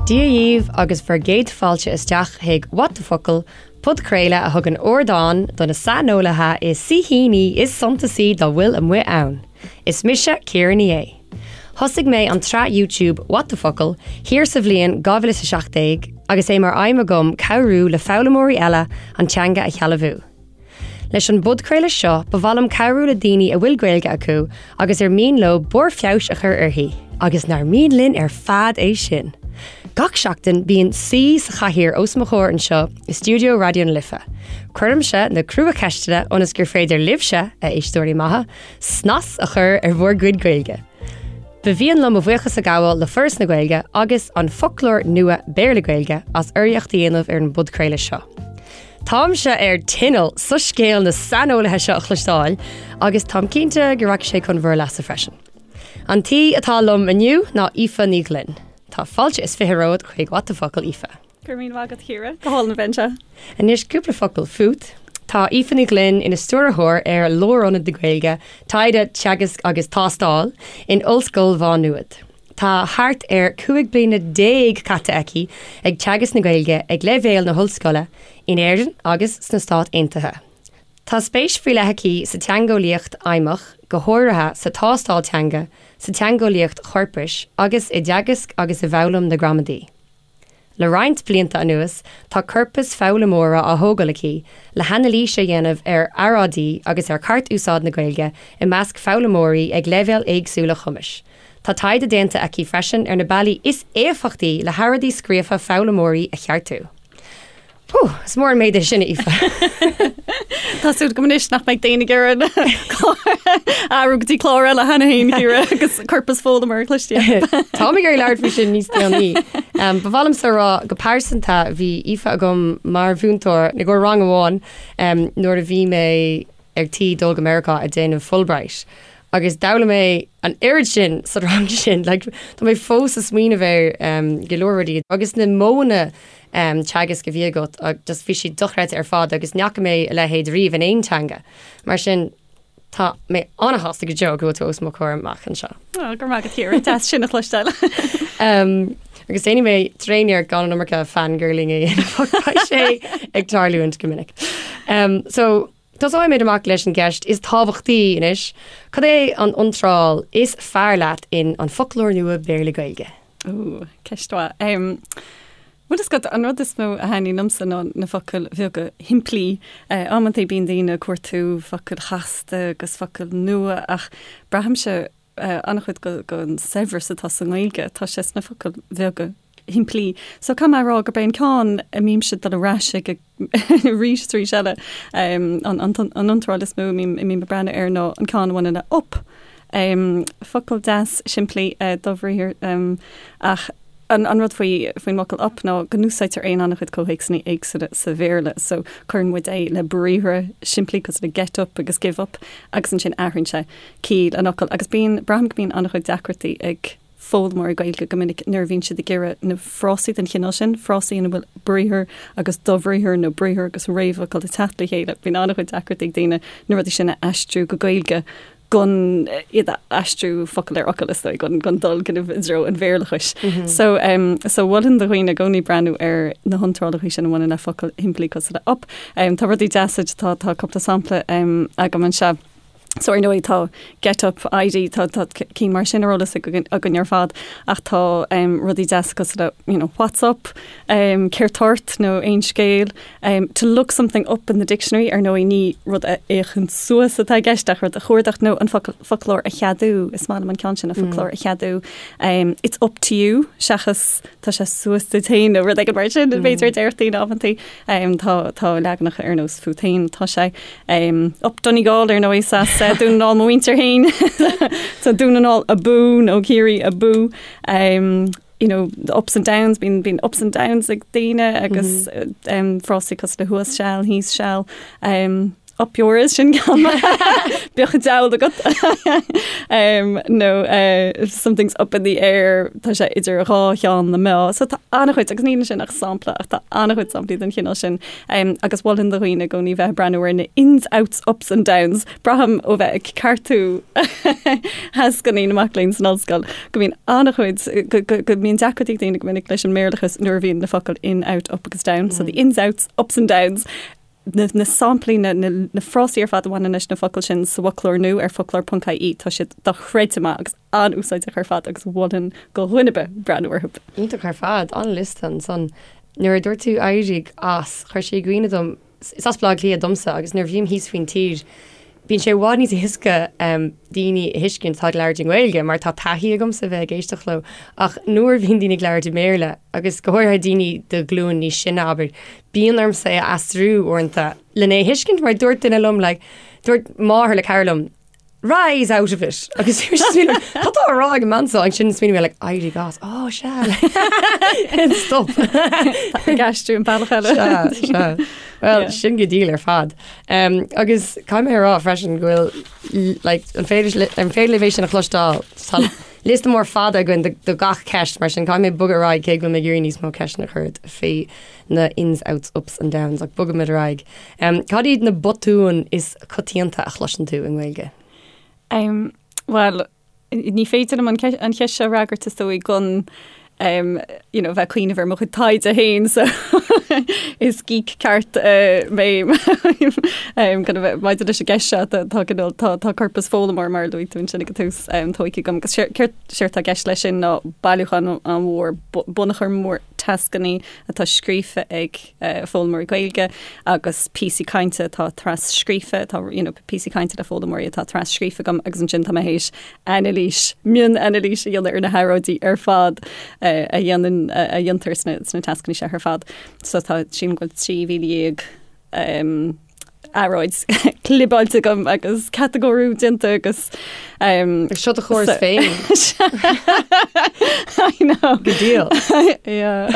Dia dhaoibh agus bhur gcéad fáilte isteach chuig What the Focal, podchraoladh a thugann ardán do na saineolaithe is saoithíní is suntasaí dá bhfuil amuigh ann. Is mise Ciara Ní É. Thosaigh mé an tsraith YouTube What the Focal thiar sa bhliain 2017 agus é mar aidhm agam cabhrú le foghlaimeoirí eile an teanga a shealbhú. Leis an bpodchraoladh seo, ba mhaith liom cabhrú le daoine a bhfuil Gaeilge acu agus ar mian leo barr feabhais a chur uirthi, agus nár mian linn ar fad é sin! Gach seachtain, bíonn saoi sa chathaoir os mo chomhair anseo i stiúideo Raidió na Life. Cuirimse na cruacheisteanna ionas gur féidir libhse, a éisteoirí maithe, snas a chur ar bhur gcuid Gaeilge. Ba mhian liom mo bhuíochas a ghabháil le Foras na Gaeilge agus An Foclóir Nua Béarla-Gaeilge as urraíocht a dhéanamh ar an bpodchraoladh seo. Táimse ar tinneall soiscéal na saineolaithe seo a chloisteáil agus táim cinnte go rachaidh sé chun bhur leasa freisin. An t-aoi atá liom inniu ná Aoife Ní Ghlinn. Tá fáilte is 20 romhat chuig What the Focal, Aoife. Go raibh míle maith agat, Ciara. Go hálainn a bheith anseo. Anois cúpla focal fút. Tá Aoife Ní Ghlinn ina stiúrthóir ar Lárionad na Gaeilge, Taighde, Teagasc agus Tástáil, in Ollscoil Mhá Nuad. Tá thart ar 15 bliana caite aici ag teagasc na Gaeilge ag leibhéal na hollscoile in Éirinn agus sna Stáit Aontaithe. Tá spéis faoi leith aici sa teangeolaíocht fheidhmeach, go háirithe sa tástáil teanga, sa teangeolaíocht chorpais agus i dteagasc agus i bhfoghlaim na gramadaí. Le roinnt blianta anuas, tá corpas foghlaimeora á thógáil aici le hanailís a dhéanamh ar earráidí agus ar cheart-úsáid na Gaeilge i measc foghlaimeoirí ag leibhéil éagsúla cumais. Tá taighde déanta aici freisin ar na bealaí is éifeachtaí le hearráidí scríofa foghlaimeoirí a cheartú. Hú, is mór an méid é sin, Aoife. Tá súil agam anois nach mbeidh daoine ag iarraidh athrú go dtí clár eile cheana féin, Ciara, agus corpas foghlaimeora a chloisteáil. Táim ag iarraidh labhairt faoi sin níos déanaí. Ba mhaith liomsa a rá go pearsanta bhí Aoife agam mar mhúinteoir i gcomhair rang amháin nuair a bhí mé ar tí dul go Meiriceá ag déanamh Fulbright. Agus d'fhoghlaim mé an oiread sin sa rang sin, like, tá mé fós ag smaoineamh ar um, go leor rudaí agus na modhanna um, teagaisc a bhí agat just bhí siad dochreidte ar fad agus ní fhaca mé a leithéid riamh in aon teanga. Mar sin tá mé an-sásta go deo go bhfuil tú os mo chomhair amach anseo. Ó, go raibh maith agat, Ciara, deas sin a chloisteáil. Um, agus déanfaidh mé tréaniarracht gan an iomarca fangirling a dhéanamh ach beidh sé ag tarlúint go minic. Um, so, Tosóimid amach leis an gceist is tábhachtaí anois, cad é an iontráil is fearr leat in An Foclóir Nua Béarla-Gaeilge? Ooh, ceist mhaith. Um, bhuel, is dócha, an rud is mó a thaitníonn liomsa ná na focail bheaga shimplí. Uh, amantaí bíonn daoine ag cuartú focail chasta agus focail nua ach braithimse an-chuid den saibhreas atá sa nGaeilge, tá sé sna focail bheaga shimplí. So caithfidh mé a rá gurb é an ceann a mbímse ag dul ar ais aige arís is arís eile, an iontráil is mó a mbím ag breathnú air ná an ceann a bhaineann le up. Focal deas simplí dobhriathar ach an rud faoi faoin bhfocal up ná go n-úsáidtear é in an-chuid comhthéacsanna éagsúla sa Bhéarla. So cuireann muid é le briathra simplí cosúil le get up agus give up agus ansin athraíonn sé ciall an fhocail agus bíonn, braithim go mbíonn an-chuid deacrachtaí ag foghlaimeoirí Gaeilge go minic nuair a bhíonn siad ag iarraidh na frásaí den chineál sin, frásaí ina bhfuil briathar agus dobhriathar nó briathar agus réamhfhocal ag teacht le chéile, bíonn an-chuid deacrachtaí ag daoine na rudaí sin a aistriú go Gaeilge gan iad a aistriú focal ar fhocal is dóigh, gan gan dul kind of i dtreo an Bhéarlachais. So um, so mholfainn do dhaoine i gcónaí breathnú ar na hiontrálacha sin a bhaineann le focail shimplí cosúil le up. Um, tá rudaí deasa, tá tá cúpla sampla um, agam anseo. So ar ndóigh tá Get Up, ID, tá tá cinn mar sin ar eolas againn ar fad ach tá um, rudaí deasa cosúil le you know, what's up, um, céard tá ort nó aon scéal, um, to look something up in the dictionary ar ndóigh ní rud a fhéachaint suas atá i gceist ach rud a chuardach nó an focal, foclóir a cheadú, is maith liom an ceann sin an foclóir a cheadú. Um, it's up to you seachas tá sé suas duit féin nó rud éigin mar sin, b'fhéidir a déarfadh daoine amantaí. Um, tá, tá leaganacha ar nós fút féin tá sé. Up Donegal ar ndóigh as Dún na nGall mo mhuintir féin. So Dún na nGall abú nó Ciarraí abú. Um, you know, the ups and downs, bíonn bíonn ups and downs ag daoine agus um, frásaí cosúil le thuas seal, thíos seal. Um, Up yours sin ceann bíodh an diabhal agat nó something's up in the air tá sé idir dhá cheann na meá. So tá an-chuid agus níl sin ach sampla ach tá an-chuid samplaí den chineál sin agus mholfainn do dhaoine i gcónaí bheith ag breathnú ar na ins, outs, ups and downs. Braithim ó bheith ag ceartú thascanna na mac léinn san ollscoil go mbíonn an-chuid go mbíonn deacrachtaí ag daoine go minic leis an mBéarlachas nuair a bhíonn na focail in, out, up agus down. So the ins, outs, ups and downs na, na samplaí, na, na, na frásaí ar fad a bhaineann leis na focail sin sa bhfoclóir nua ar foclóir.ie, tá siad dochreidte maith agus an-úsáideach ar fad agus mholfainn do dhuine ar bith breathnú orthu. Iontach ar fad, an-liosta ansan. Nuair a dúirt tú éirigh as, chuir sé i gcuimhne dom, is as Baile Átha Cliath domsa agus nuair a bhím thíos faoin tír, bíonn sé i bhfad níos éasca daoine a thuiscint atá ag labhairt i nGaeilge mar tá taithí agamsa a bheith ag éisteacht leo ach nuair a bhíonn daoine ag labhairt i mBéarla agus go háirithe daoine de ghlúin níos sine abair, bíonn ormsa é a aistriú uaireanta lena é a thuiscint mar dúirt duine liom like, dúirt máthair le cara liom, rise out of it agus bhí mise ag smaoineamh cad tá á rá ag an mbean seo ansin smaoinigh mé like éirigh as oh sea stop ag aistriú an bealach eile Sea, sea. Well, Yeah. sin go diail ar fad. Um, agus caithfidh mé a rá freisin go bhfuil like, an féidir li- an féidir libh é sin a chloisteáil Tá liosta mór fada againn do, do gach ceist mar sin caithfidh mé bogadh ar aghaidh cé go bhfuil mé ag iarraidh níos mó ceisteanna a chur ort faoi na ins, outs, ups and downs ach bogfaimid ar aghaidh. Um, cad iad na botúin is coitianta a chloiseann tú i nGaeilge? Um, Bhuel, ní féidir liom an an cheist seo a fhreagairt is dóigh gan um, you know, bheith ag cuimhneamh ar mo chuid taighde féin so is geek ceart uh, mé um, kind of, maidir leis an gceist seo tá tá cineál- tá tá corpas foghlaimeoir mar a luaigh tú ansin ag an tús um, tógtha agam agus séard séard atá i gceist leis sin ná bailiúchán an-mhór bunachar mór tascanna atá scríofa ag foghlaimeoirí Gaeilge agus píosaí cainte atá tras-scríofa, atá you know, píosaí cainte le foghlaimeoirí atá tras-scríofa agam agus ansin tá mé théis anailís, mion-anailís a dhéanamh ar na hearráidí ar fad a dhéanann, a dhéantar sna, sna tascanna seo ar fad. So tá sílim go bhfuil 13,000 um, earráid clibeáilte agam agus catagóiriú déanta agus um, Seo do chóras féin. I know. Go diail. Yeah.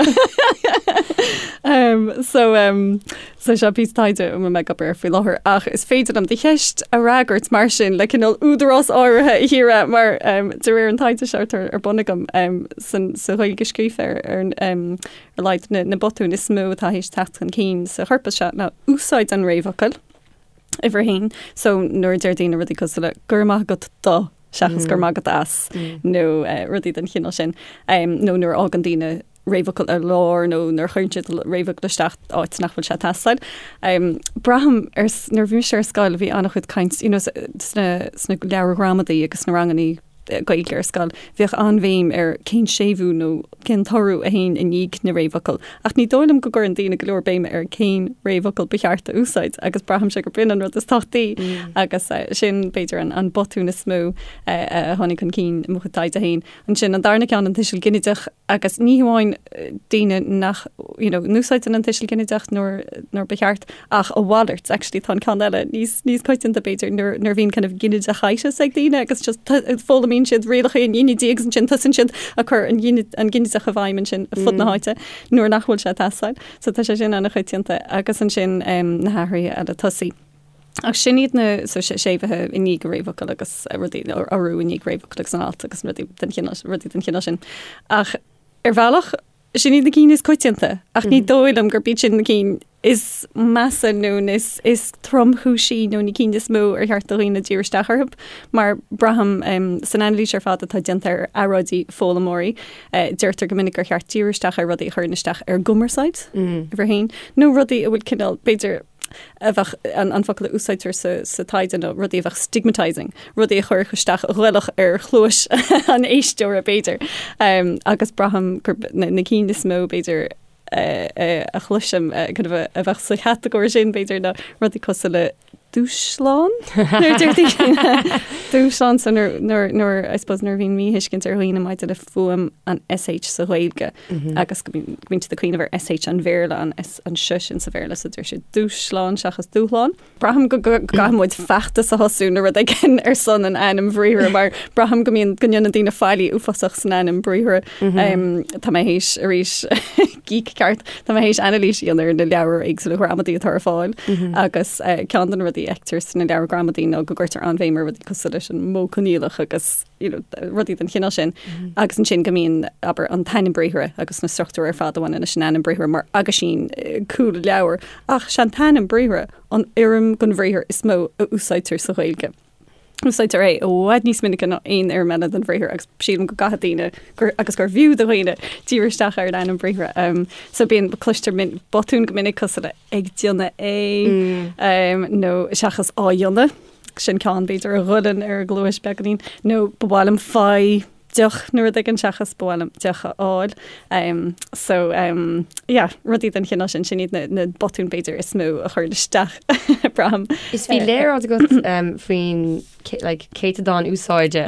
um, so um, so seo píosa taighde a bhfuil mé ag obair air faoi láthair ach is féidir liom do cheist a fhreagairt mar sin le cineál údarás áirithe a Chiara mar um, de réir an taighde seo atá ar bun agam um, san, sa Ghaeilge scríofa ar, ar um, ar a laghad na botúin is mó atá théis teacht chun cinn sa chorpas seo ná úsáid an réamhfhocail, uimhir a haon. So nuair a deir daoine rudaí cosúil le 'go raibh maith agat do' seachas 'go raibh maith agat as' nó rudaí den chineál sin, nó nuair a fhágann daoine réamhfhocal ar lár nó nuair a chuireann siad réamhfhocal isteach áit nach bhfuil sé ag teastáil. Braithim ar, nuair a bhí mise ar scoil bhí an-chuid caint, you know, sna, sna leabhair ghramadaí agus sna rangannaí Gaeilge ar scoil, bhíodh an-bhéim ar cén séimhiú nó cén t-urú a théann i ndiaidh na réamhfhocal. Ach ní dóigh liom go gcuireann daoine go leor béime ar cén réamhfhocal ba cheart a úsáid agus braithimse gurb in an rud is tábhachtaí agus sin b'fhéidir an botún is mó a tháinig chun cinn i mo chuid taighde féin. Ansin an darna ceann, an tuiseal ginideach, agus ní hamháin daoine nach you know, n-úsáideann an tuiseal ginideach nuair, nuair ba cheart, ach a mhalairt, actually tá an ceann eile níos, níos coitianta b'fhéidir, nuair, nuair a bhíonn kind of ginideachitis ag daoine agus just foghlaimíonn siad rialacha an ghinidí agus ansin tosaíonn siad ag cur an, an ginideach i bhfeidhm ansin ar fud na háite nuair nach bhfuil sé ag teastáil. So tá sé sin an-choitianta agus ansin um, na hathruithe eile tosaigh. Ach sin iad na so séimhithe i ndiaidh réamhfhocal agus rudaí urú i ndiaidh réamhfhocal agus an alt agus rudaí den chineál rudaí den chineál sin. Ach ar bhealach sin iad na cinn is coitianta ach ní dóigh liom gurb iad sin na cinn is measa nó is is tromchúisí nó na cinn is mó ar cheart do dhaoine díriú isteach orthu mar braithim um, san anailís ar fad atá déanta ar earráidí foghlaimeoirí uh, deirtear go minic gur cheart díriú isteach ar rudaí a chuireann isteach ar gcumarsáid mm. uimhir a haon nó rudaí a bhfuil cineál b'fhéidir a bheadh an focal a úsáidtear sa taighde nó rudaí a bheadh stigmatising, rudaí a chuirfeadh isteach a ghoilfeadh ar chluais an éisteora b'fhéidir. Agus braithim gur na cinn is mó b'fhéidir a chloisim kind of a bheadh sa chatagóir sin b'fhéidir ná rudaí cosúil le dúshlán nuair a deir daoine dúshlán so nuair nuair I suppose nuair a bhíonn míthuiscint ar dhaoine maidir le fuaim an SH sa Ghaeilge agus go mbíonn siad ag cuimhneamh ar SH an Bhéarla an S an S sin sa Bhéarla so deir siad dúshlán seachas dúshlán. Braithim go gcaithfidh muid feachtas a thosú nó rud éigin ar son an ainm bhriathra mar braithim go mbíonn go ndéanann daoine faillí uafásach san ainm briathra. Tá mé théis arís geek ceart, tá mé théis anailís a dhéanamh ar na leabhair éagsúla ghramadaí atá ar fáil agus ceann de na rudaí. rudaí a fheictear sna leabhair gramadaí ná go gcuirtear an-bhéim ar rudaí cosúil leis an modh coinníollach agus you know, rudaí den chineál sin. Agus ansin go mbíonn, abair, an t-ainm briathartha agus na struchtúir ar fad a bhaineann leis an ainm briathartha mar aguisín cúl leabhair. Ach sé an t-ainm briathartha an fhoirm den bhriathar is mó a úsáidtear sa Ghaeilge. Úsáidtear é i bhfad níos minice ná aon fhoirm eile den bhriathar agus sílim go gcaithfidh daoine gur, agus gur bhfiú do dhaoine díriú isteach ar an ainm briathartha. Um, so bíonn cloistear min, botúin go minic cosúil le ag déanamh é um, nó seachas á dhéanamh, sin ceann b'fhéidir a ghoilleann ar an gcluais beagáinín, nó ba mhaith liom faigh deoch nó rud éigin seachas ba mhaith liom deoch a fháil. Um, so um, yeah, rudaí den chineál sin, sin iad na, na botúin b'fhéidir is mó a chuireann isteach braithim. Is bhí léaráid agat um, faoin like, céatadán úsáide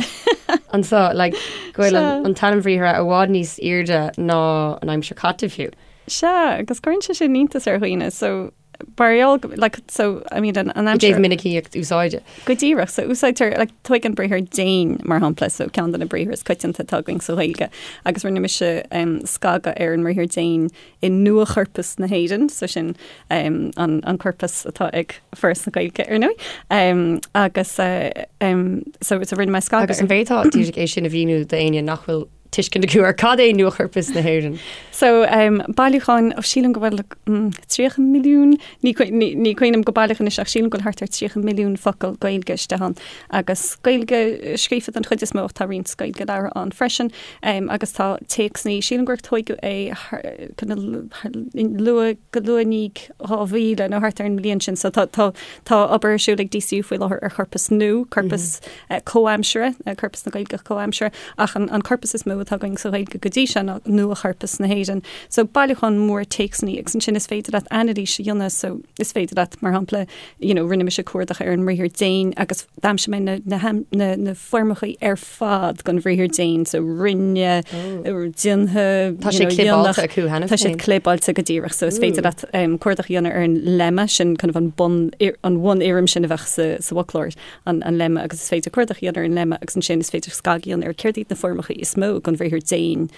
anseo like, go bhfuil an, an t-ainm bhriathartha i bhfad níos airde ná an aimsir chaite fiú. Sea, agus cuireann sé sin iontas ar dhaoine, so mar gheall go, like, so, I mean, an, an I aimsir... dtaobh minicíocht úsáide. Go díreach, so úsáidtear, like, tóig an briathar déan, mar shampla, so ceann de na briathra is coitianta atá againn sa Ghaeilge, agus rinne mise um, scagadh ar an mbriathar déan i nua-chorpas na hÉireann, so sin um, an, an corpas atá ag Foras na Gaeilge, ar ndóigh, um, agus uh, um, so, so rinne mé scagadh Agus an bhféadfá díreach é sin a mhíniú d'éinne nach bhfuil tuiscint acu ar cad é Nuachorpas na hÉireann. So, um, bailiúchán, ó sílim go bhfuil mm, 30 milliún, ní, ní, ní cuimhin liom go baileach anois ach sílim go bhfuil thart ar 30 milliún focal Gaeilge istigh ann. Agus Gaeilge scríofa den chuid is mó ach tá roinnt Gaeilge labhartha ann freisin. Um, agus tá téacsanna, sílim gur tóigeadh é thar- kind of luath, go luath i ndiaidh 2000 nó thart ar an mbliain sin. So tá, tá, tá obair ar siúl ag DCU faoi láthair ar chorpas nua, corpas mm -hmm. comhaimseartha, corpas na Gaeilge comhaimseartha, ach an, an corpas is mó atá againn sa Ghaeilge go dtí seo ná nua-chorpas na hÉireann. So bailiúchán mór téacsanna agus ansin is féidir leat anailís a dhéanamh, so is féidir leat, mar shampla, you know, rinne mise cuardach ar an mbriathar déan agus d'aimsigh mé na, na, na, na foirmeacha ar fad den bhriathar déan, so rinne, déantha, Tá sé clibeáilte acu cheana Tá siad clibeáilte go díreach, so is féidir leat um, cuardach a dhéanamh ar an lemma sin kind of an bun, an bhunfhoirm sin a bheadh sa, sa bhfoclóir, an, an lemma, agus is féidir cuardach a dhéanamh ar an lemma agus ansin is féidir scagadh a dhéanamh ar céard iad na foirmeacha is mó den bhriathar déan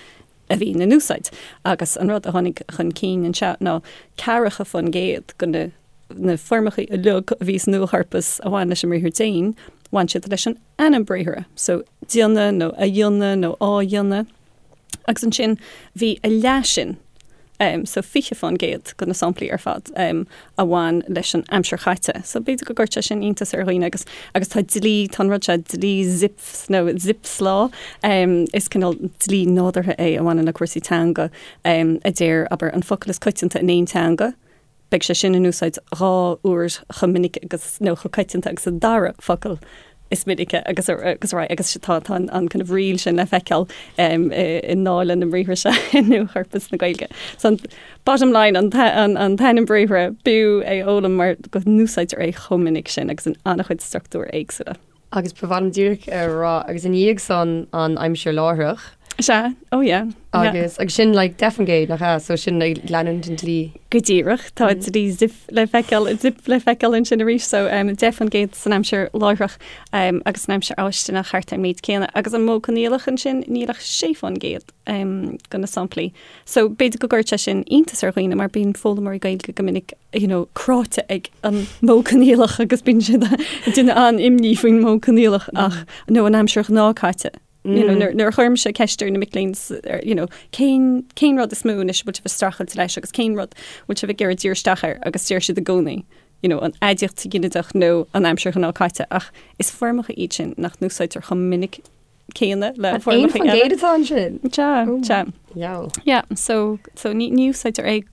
a bhíonn in úsáid. Agus an rud a tháinig chun cinn anseo ná 40% de na na foirmeacha uilig a bhí sa nuachorpas a bhain leis an mbriathar déan, bhain siad leis an ainm briathartha, so déanamh nó a dhéanamh nó á dhéanamh. Agus ansin bhí a leath sin, um, so 20% de na samplaí ar fad um, a bhain leis an aimsir chaite. So b'fhéidir go gcuirfeadh sé sin iontas ar dhaoine agus agus tá dlí, tá an rud seo dlí Zipf nó Zipf's Law, um, is cineál dlí nádúrtha é a bhaineann le cúrsaí teanga um, a deir, abair, an focal is coitianta in aon teanga, beidh sé sin in úsáid 2 uair chomh minic agus, nó chomh coitianta agus an dara focal is minice agus ar aghaidh agus tá tá an kind of riail sin le feiceáil i ndáil leis na briathra seo i Nuachorpas na Gaeilge. So an bottom line an an t-ainm briathartha b'fhiú é a fhoghlaim mar go n-úsáidtear é chomh minic sin agus in an-chuid struchtúir éagsúla. Agus ba mhaith liom díreach a rá, agus i ndiaidh san an aimsir láithreach. Sea, oh yeah. Agus, agus sin like 10%, nach ea? So sin ag leanúint an dlí. Go díreach, tá dlí Zipf le feiceáil, Zipf le feiceáil ansin arís, so um, 10% san aimsir láithreach um, agus san aimsir fháistineach thart ar an méid céanna. Agus an modh coinníollach ansin, níl ach 6% um, de na samplaí. So b'fhéidir go gcuirfeadh sé sin iontas ar dhaoine mar bíonn foghlaimeoirí Gaeilge go minic you know, cráite ag an modh coinníollach agus bíonn siad ag déanamh an-imní faoin modh coinníollach ach nó an aimsir ghnáthchaite. You know, nuair nuair a chuirimse ceist ar na mic léinn you know, cén cén rud is mó anois a bhfuil sibh ag streachailt leis agus cén rud bhfuil sibh ag iarraidh díriú isteach air agus deir siad i gcónaí you know, an aidiacht sa ghinideach nó an aimsir ghnáthchaite ach is foirmeacha iad sin nach n-úsáidtear chomh minic céanna le foirmeacha eile. 1% atá ansin? Sea, sea. Dheabhail. Yeah, so, so ní, ní úsáidtear é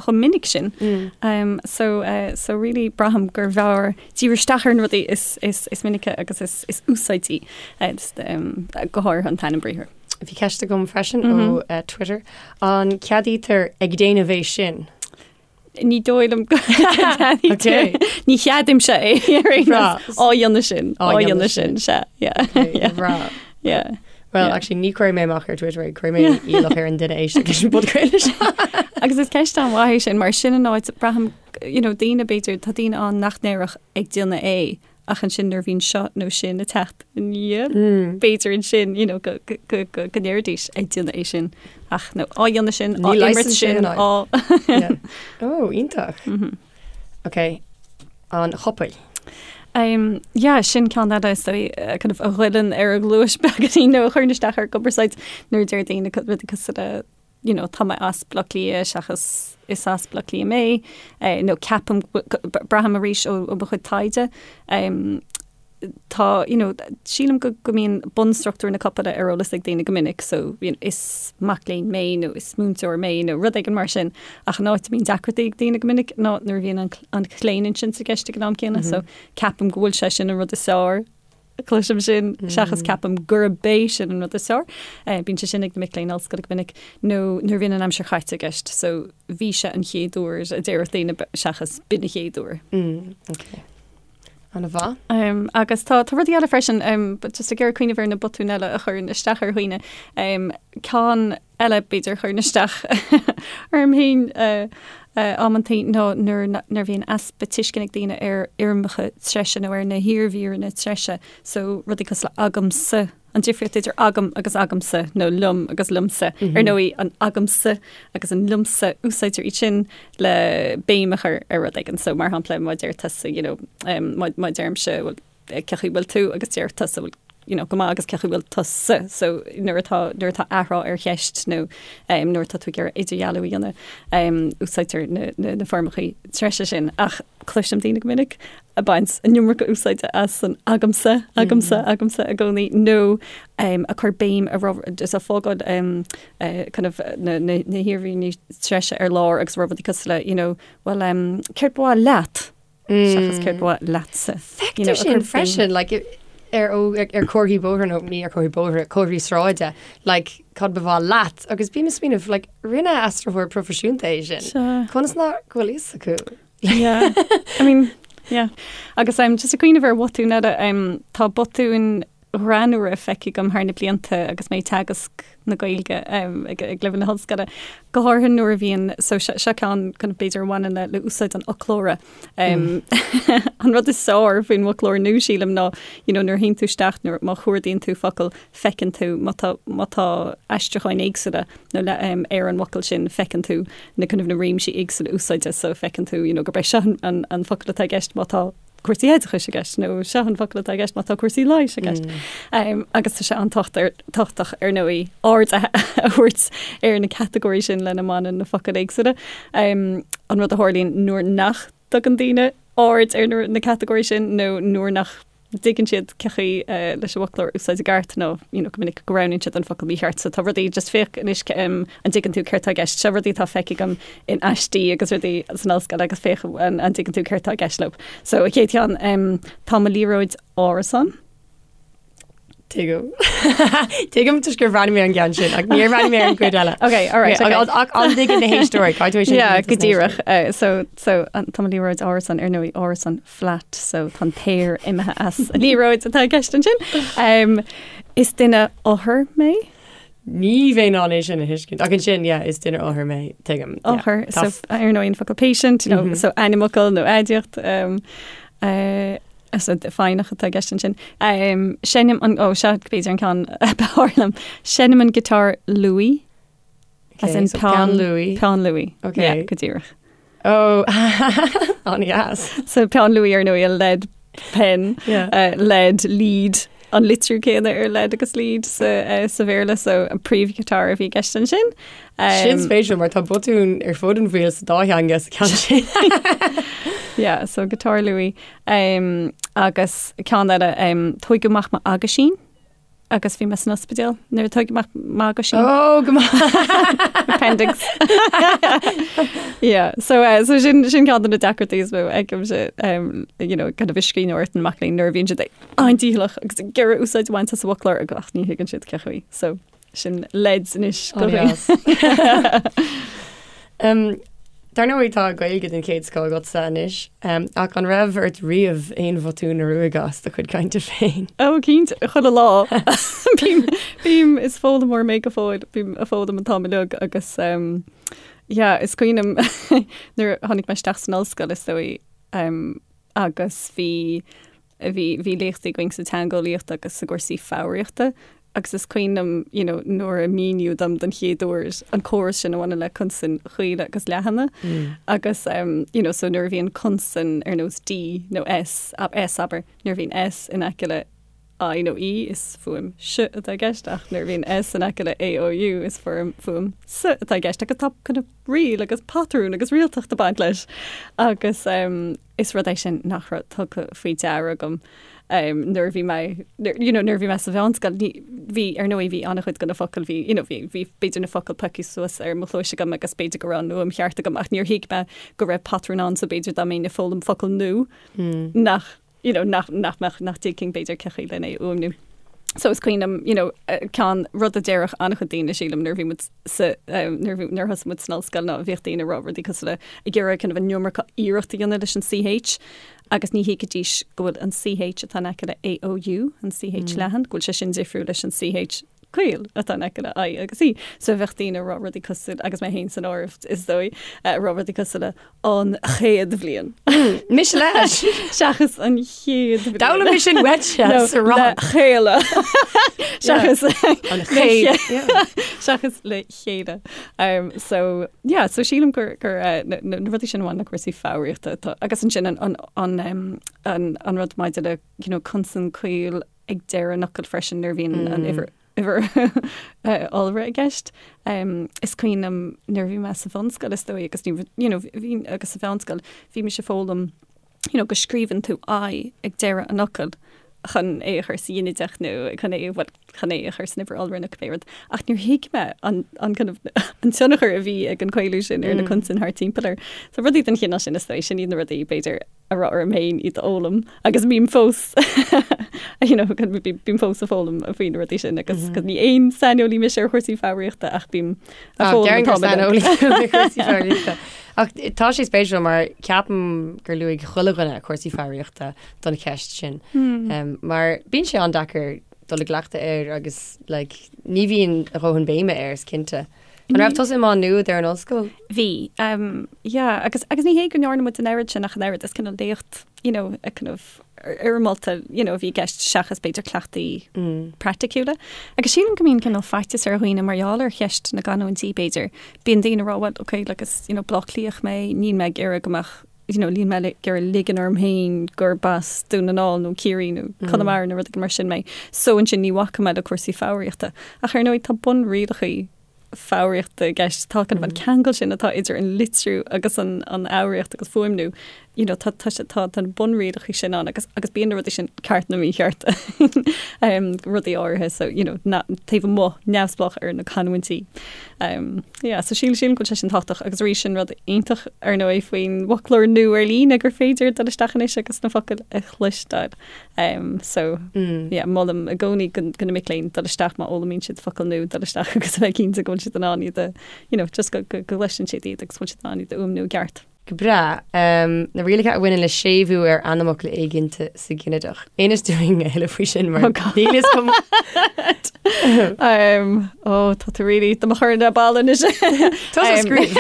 chomh minic sin. Um, so, uh, so really braithim gur bhfearr díriú isteach ar na rudaí is, is, is minice agus is, is úsáidí uh, um, go háirithe an t-ainm briathair. Bhí ceist agam freisin mm -hmm. ó uh, Twitter. An ceadaítear ag déanamh é sin? Ní dóigh liom go Okay. Ní cheadaímse é ar aon Breá. nós. Á dhéanamh sin, Á á dhéanamh dhéanamh sin, sea, yeah. Yeah. Breá. Yeah. Well, Yeah. actually, ní chuirfidh mé amach ar Twitter é, cuirfidh mé iallach ar an duine éisteacht leis an bpodchraoladh seo. Agus is ceist an-mhaith é sin, mar sin an áit, braithim, you know, daoine b'fhéidir, tá daoine ann nach ndéarfadh ag déanamh é, ach ansin nuair a bhíonn seo nó sin ag teacht ina dhiaidh, b'fhéidir ansin, you know, go, go, go, go, go ndéarfaidís ag déanamh é sin, ach nó á dhéanamh sin, á Ní imirt leigheasann sé sin, an á. Yeah. Oh, iontach. Ok. an chopail. Um, yeah, sin ceann eile is dóigh eh, kind of a ghoilleann ar an ghluais beagáinín nó a chuireann isteach ar an gcumarsáid nuair a deir daoine co- rudaí cosúil le you know, tá mé as Baile Átha Cliath seachas is as Baile Átha Cliath mé, eh, nó ceapaim go- go- braithim arís ó ó mo chuid taighde um, tá, you know, sílim go go mbíonn bunstruchtúr na copaile ar eolas ag daoine go minic, so, you know, is mac léinn mé nó is múinteoir mé nó rud éigin mar sin, ach an áit a mbíonn deacrachtaí ag daoine go minic ná nuair a bhíonn an an chlaoninsint i gceist ag an am céanna, so ceapaim go bhfuil sé sin an rud is fearr, cloisim sin, seachas ceapaim gurb é sin an rud is fearr. Eh, bíonn sé sin ag na mic léinn ollscoile go minic, nó nuair a bhíonn an aimsir chaite i gceist, so bhí sé an chéad uair a déarfadh daoine seachas b'in an chéad uair. Mm, okay. An-mhaith. Um, agus tá tá rudaí eile freisin, um, but just ag iarraidh cuimhneamh ar na botúin eile a chuireann isteach ar dhaoine. Um, ceann eile b'fhéidir a chuireann isteach orm féin uh, uh, amantaí ná nuair nuair a bhíonn easpa tuisceana ag daoine ar fhoirmeacha treise nó ar na hiarmhíreanna treise, so rudaí cosúil le agamsa An difríocht idir agam agus agamsa, nó liom agus liomsa. Ar ndóigh, an agamsa agus an liomsa, úsáidtear iad sin le béim a chur ar rud éigin. So, mar shampla, má deir tusa, you know, má, má deirimse, bhuel, cén chaoi a bhfuil tú agus deir tusa, bhuel, you know, go maith agus cén chaoi a bhfuil tusa. So, nuair atá, nuair atá athrá ar cheist nó um, nuair atá tú ag iarraidh idirdhealú a dhéanamh, um, úsáidtear na, na, na foirmeacha treise sin. Ach cloisim daoine go minic ag baint an iomarca úsáide as an agamsa, agamsa, agamsa i gcónaí, nó ag cur béim ar rud, is ag fágáil kind of na na na hiarmhíreanna treise ar lár agus rá rudaí cosúil le, you know, well um, céard ba mhaith leat? Seachas céard ba mhaith leatsa. You know, Feictear sin freisin, like, ar ar comharthaí bóthair nó ní ar comharthaí bóthair, comharthaí sráide, like, cad ba mhaith leat? Agus bím ag smaoineamh, like, rinne aistritheoir proifisiúnta é sin. Conas nach bhfuil fhios acu? Yeah. I mean, yeah. Agus um, just ag cuimhneamh ar bhotúin eile, um, tá botúin ghreannmhara feicthe agam thar na blianta agus mé ag teagasc na Gaeilge um, ag, ag leibhéal na hollscoile. Go háirithe nuair a bhíonn, so seo, seo ceann kind of b'fhéidir a bhaineann le, le úsáid an fhoclóra. Um, an rud is fearr faoin bhfoclóir nua sílim ná, you know, nuair a théann tú isteach, nuair má chuardaíonn tú focal, feiceann tú má tá, má tá aistriúcháin éagsúla nó le, um, ar an bhfocal sin, feiceann tú na kind of na réimsí éagsúla úsáide so feiceann tú you know, gurb é seo an, an, an focal atá i gceist má tá cúrsaí oideachais i gceist nó seo an focal atá i gceist má tá cúrsaí leighis i gceist. Mm. Um, agus tá sé an-tábhachtach ar ndóigh aird a thabhairt ar na catagóirí sin lena mbaineann na focail éagsúla. Um, an rud a tharlaíonn nuair nach dtugann daoine aird ar na, na catagóirí sin nó nuair nach dtuigeann siad cén chaoi leis an bhfoclóir a úsáid i gceart nó you know go minic go roghnaíonn siad an focal mícheart. So tá rudaí, just féach anois an dtuigeann tú céard tá i gceist. Seo rudaí atá feicthe agam in aistí agus rudaí san ollscoil agus féach an dtuigeann tú céard tá i gceist leo. So an chéad cheann, tá mo liathróid árasán. Tuigim. Tuigim toisc gur bhreathnaigh mé ar an gceann sin ach níor bhreathnaigh mé ar an gcuid eile. Ok, all right, okay. Ach an dtuigeann na héisteoirí, caithfidh tú é sin Yeah, go díreach. Uh, so, so an, tá mo liathróid árasán ar ndóigh árasán flat, so tá an t-aer imithe as an liathróid atá i gceist ansin. Um, is duine othar mé. Ní bheinn in ann é sin a thuiscint. Ach ansin, yeah, is duine othar mé, tuigim. Yeah. Othar, so ar ndóigh an focal patient, you know, mm -hmm. so ainmfhocal nó aidiacht. Um, uh, So foighneach atá i gceist ansin. Um, seinnim an, ó, seo b'fhéidir an ceann ab fhearr liom. Seinnim an giotár luaí. Okay, As in so peann luaí. Peann luaí. Okay. Yeah, go díreach. Oh, an-deas. So peann luaí ar ndóigh a lead pen, yeah. uh, lead, lead, an litriú céanna ar lead agus lead sa, uh, sa Bhéarla, so an príomhghiotár a bhí i gceist ansin. Um, sin spéisiúil mar tá botún ar fud an bhaill sa dá theanga sa ceann sin. yeah, so giotár luaí. Um, agus ceann eile, um, tóigeadh amach m'aguisín agus bhí mé san ospidéal nuair a tóigeadh amach m'aguisín. Oh, go maith. Appendix. yeah, so, uh, so sin, sin ceann de na deacrachtaí is mó a fheicimse, um, you know, kind of i scríbhneoireacht na mac léinn nuair a bhíonn siad an-dícheallach agus ag iarraidh úsáid a bhaint as an bhfoclóir ach ach ní thuigeann siad cén chaoi. So sin leideas anois go An-deas. Um, Dar ndóigh tá Gaeilge den chéad scoth agatsa anois, um, ach an raibh ort riamh aon bhotún a ruaigeadh as do chuid cainte féin? Ó cinnte, chuile lá. Bím, bím, is foghlaimeoir mé go fóill, bím ag foghlaim an t-am uilig agus um, yeah, is cuimhin liom nuair a tháinig mé isteach san ollscoil is dóigh um, agus bhí bhí bhí léachtaí againn sa teangeolaíocht agus i gcúrsaí foghraíochta. Agus is cuimhin liom, you know, nuair a míníodh dom don chéad uair an córas sin a bhaineann le consain chaola agus leathana. Agus, you know, so nuair a bhíonn consan ar nós D nó S, S abair, nuair a bhíonn S in aice le I nó E is fuaim S atá i gceist ach nuair a bhíonn S in aice le A, O, U is fuaim fuaim S atá i gceist agus tá kind of riail agus patrún agus rialtacht ag baint leis. Agus is rud é sin nach raibh tugtha faoi deara agam nuair a bhí mé, you know, nuair a bhí mé sa mheánscoil, ní, bhí, ar ndóigh, bhí an-chuid de na focail, bhí, you know, bhí, bhí b'fhéidir na focail pioctha suas ar mo chluais agam agus b'fhéidir go raibh an fhuaim cheart agam ach níor thuig mé go raibh patrún ann so b'fhéidir dá mbeinn ag foghlaim focal nua nach, you know, nach, nach mbeadh, nach dtuigfinn b'fhéidir cén chaoi lena é a fhuaimniú. So is cuimhin liom, you know, ceann, rud a déarfadh an-chuid daoine, sílim, nuair a bhí muid sa, nuair a bhí, nuair a thosaigh muid san ollscoil ná bhíodh daoine ag rá rudaí cosúil le, ag iarraidh kind of an iomarca iarracht a dhéanamh leis an CH agus ní thuigfidís go bhfuil an CH atá in aice le AOU, an CH leathan, go bhfuil sé sin difriúil leis an CH caol atá in aice le I agus E. So bheadh daoine ag rá rudaí cosúil, agus mé féin san áireamh is dóigh, ag rá rudaí cosúil le an chéad bhliain. Mise leis! Seachas an chéad bhliain. D'fhoghlaim mé sin uaitse sa rang. Le chéile. Seachas an chéad. Seachas le chéile. Um, so, yeah, so sílim gur, gur uh, na, na rudaí sin a bhaineann le cúrsaí foghraíochta atá, agus ansin an, an, an, um, an, an rud maidir le, you know, consan caol ag deireadh an fhocail freisin nuair a bhíonn an uimhir uimhir iolra i gceist. Is cuimhin liom nuair a bhí mé sa bhunscoil is dóigh agus ní you know bhí agus sa mheánscoil bhí mise ag foghlaim you know go scríobhann tú I ag deireadh an fhocail chun é a chur sa ghinideach nó chun é bhuel chun é a chur san uimhir iolra nó cibé rud. Ach níor thuig mé an an kind of an tionchar a bhí ag an caolú sin ar na consain thart timpeall air. So rudaí den chineál sin is dóigh sin iad na rudaí b'fhéidir a raibh orm féin iad a fhoghlaim agus bím fós you know, bím fós ag foghlaim faoi na rudaí sin agus mm -hmm. ní aon saineolaí mise ar chúrsaí foghraíochta ach bím ag foghlaim saineolaí cúrsaí foghraíochta. Ach tá sé spéisiúil mar ceapaim gur luaigh chuile dhuine cúrsaí foghraíochta don cheist sin. Hmm. Um, mar bíonn sé an-deacair dul i gcleachtadh air agus like, ní bhíonn a dhóthain béime air is cinnte. An raibh tusa i Má Nuad ar an ollscoil? Bhí, um, yeah, agus, agus ní hé go ndearna muid an oiread sin ach an oiread, is cineál léacht, you know, a kind of fhoirmeálta, you know, a bhí i gceist seachas b'fhéidir cleachtaí mm. praiticiúla. Agus sílim go mbíonn cineál faitíos ar dhaoine mar gheall ar cheist na gcanúintí b'fhéidir. Bíonn daoine ag rá, well, okay, like, is, you know, Bleá Cliathach mé, níl mé ag iarraidh go mbeadh you know, níl mé ag iarraidh ligean orm féin gurb as Dún na nGall nó Ciarraí nó mm. Conamara nó rud mar sin mé. So ansin ní bhacfaidh mé le cúrsaí foghraíochta. Ach ar ndóigh tá bunrialacha foghraíochta i gceist tá kind of an mm. ceangal sin atá idir an litriú agus an an fhoghraíocht agus fuaimniú. You know, tá tá tá tá bunrialacha sin ann agus agus bíonn na rudaí sin ceart nó mícheart um, rudaí áirithe so you know, na, taobh amuigh neamhspleách ar na canúintí. Um, yeah, so síl sílim go bhfuil sé sin tábhachtach agus arís sin rud iontach ar ndóigh faoin bhfoclóir nua ar líne gur féidir dul isteach anois agus na focail a chloisteáil. Um, so mm. yeah, molaim i gcónaí do do na mic léinn dul isteach má fhoghlaimíonn siad focal nua dul isteach agus a bheith cinnte go bhfuil siad in ann iad a you know, just go go go gcloiseann siad iad agus go bhfuil siad in ann iad a fhuaimniú i gceart. Go breá. Na rialacha a bhaineann le séimhiú ar ainmfhocal éiginnte sa ghinideach. Inis dúinn a thuilleadh faoi sin mar níl fhios agam. Ó tá tú really do mo chur ar ball anois. Tá scríobh.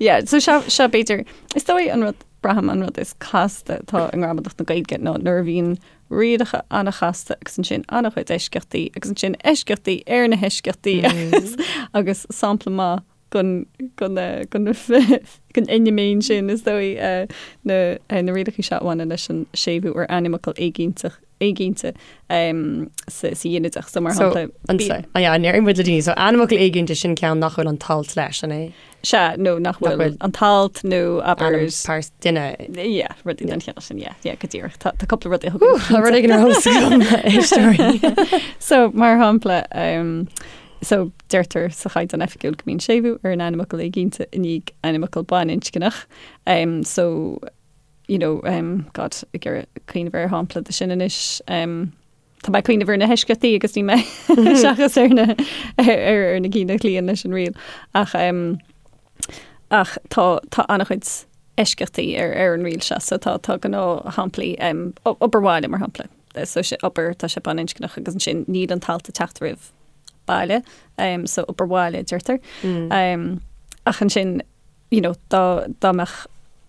Yeah, so seo seo b'fhéidir is dóigh an rud braithim an rud is casta atá i ngramadach na Gaeilge ná nuair a bhíonn rialacha an-chasta agus ansin an-chuid eisceachtaí agus ansin eisceachtaí ar na heisceachtaí agus agus sampla maith den fheiniméan sin, is dóigh, na rialacha seo a bhaineann leis an séimhiú ar ainmfhocal éiginnteach, éiginnte sa ghinideach. So, mar shampla. So, yeah, déarfaidh muid le daoine. So, ainmfhocal éiginnte, sin ceann nach bhfuil an t-alt leis, an é? Sea, nó nach bhfuil an t-alt nó abair. Ainm pearsa duine. Yeah, rudaí den chineál sin, yeah, yeah, go díreach. Tá cúpla rud a thugann. Tá rud éigin ar eolas agam, éisteoirí. So, mar shampla, So, deirtear sa Chaighdeán Oifigiúil go mbíonn séimhiú ar an ainmfhocal éiginnte i ndiaidh ainmfhocal baininscneach. So, you know, God, ag iarraidh cuimhneamh ar shampla de sin anois. Tá mé ag cuimhneamh ar na heisceachtaí agus ní mé seachas ar na ar na cinn a chloíonn leis an riail. Ach ach tá tá an-chuid eisceachtaí ar ar an riail seo, so tá tá gnáthshamplaí obair bhaile mar shampla. So sé obair tá sé baininscneach agus ansin níl an t-alt ag teacht roimh baile, so obair bhaile a deirtear. Ach ansin, you know, dá dá mbeadh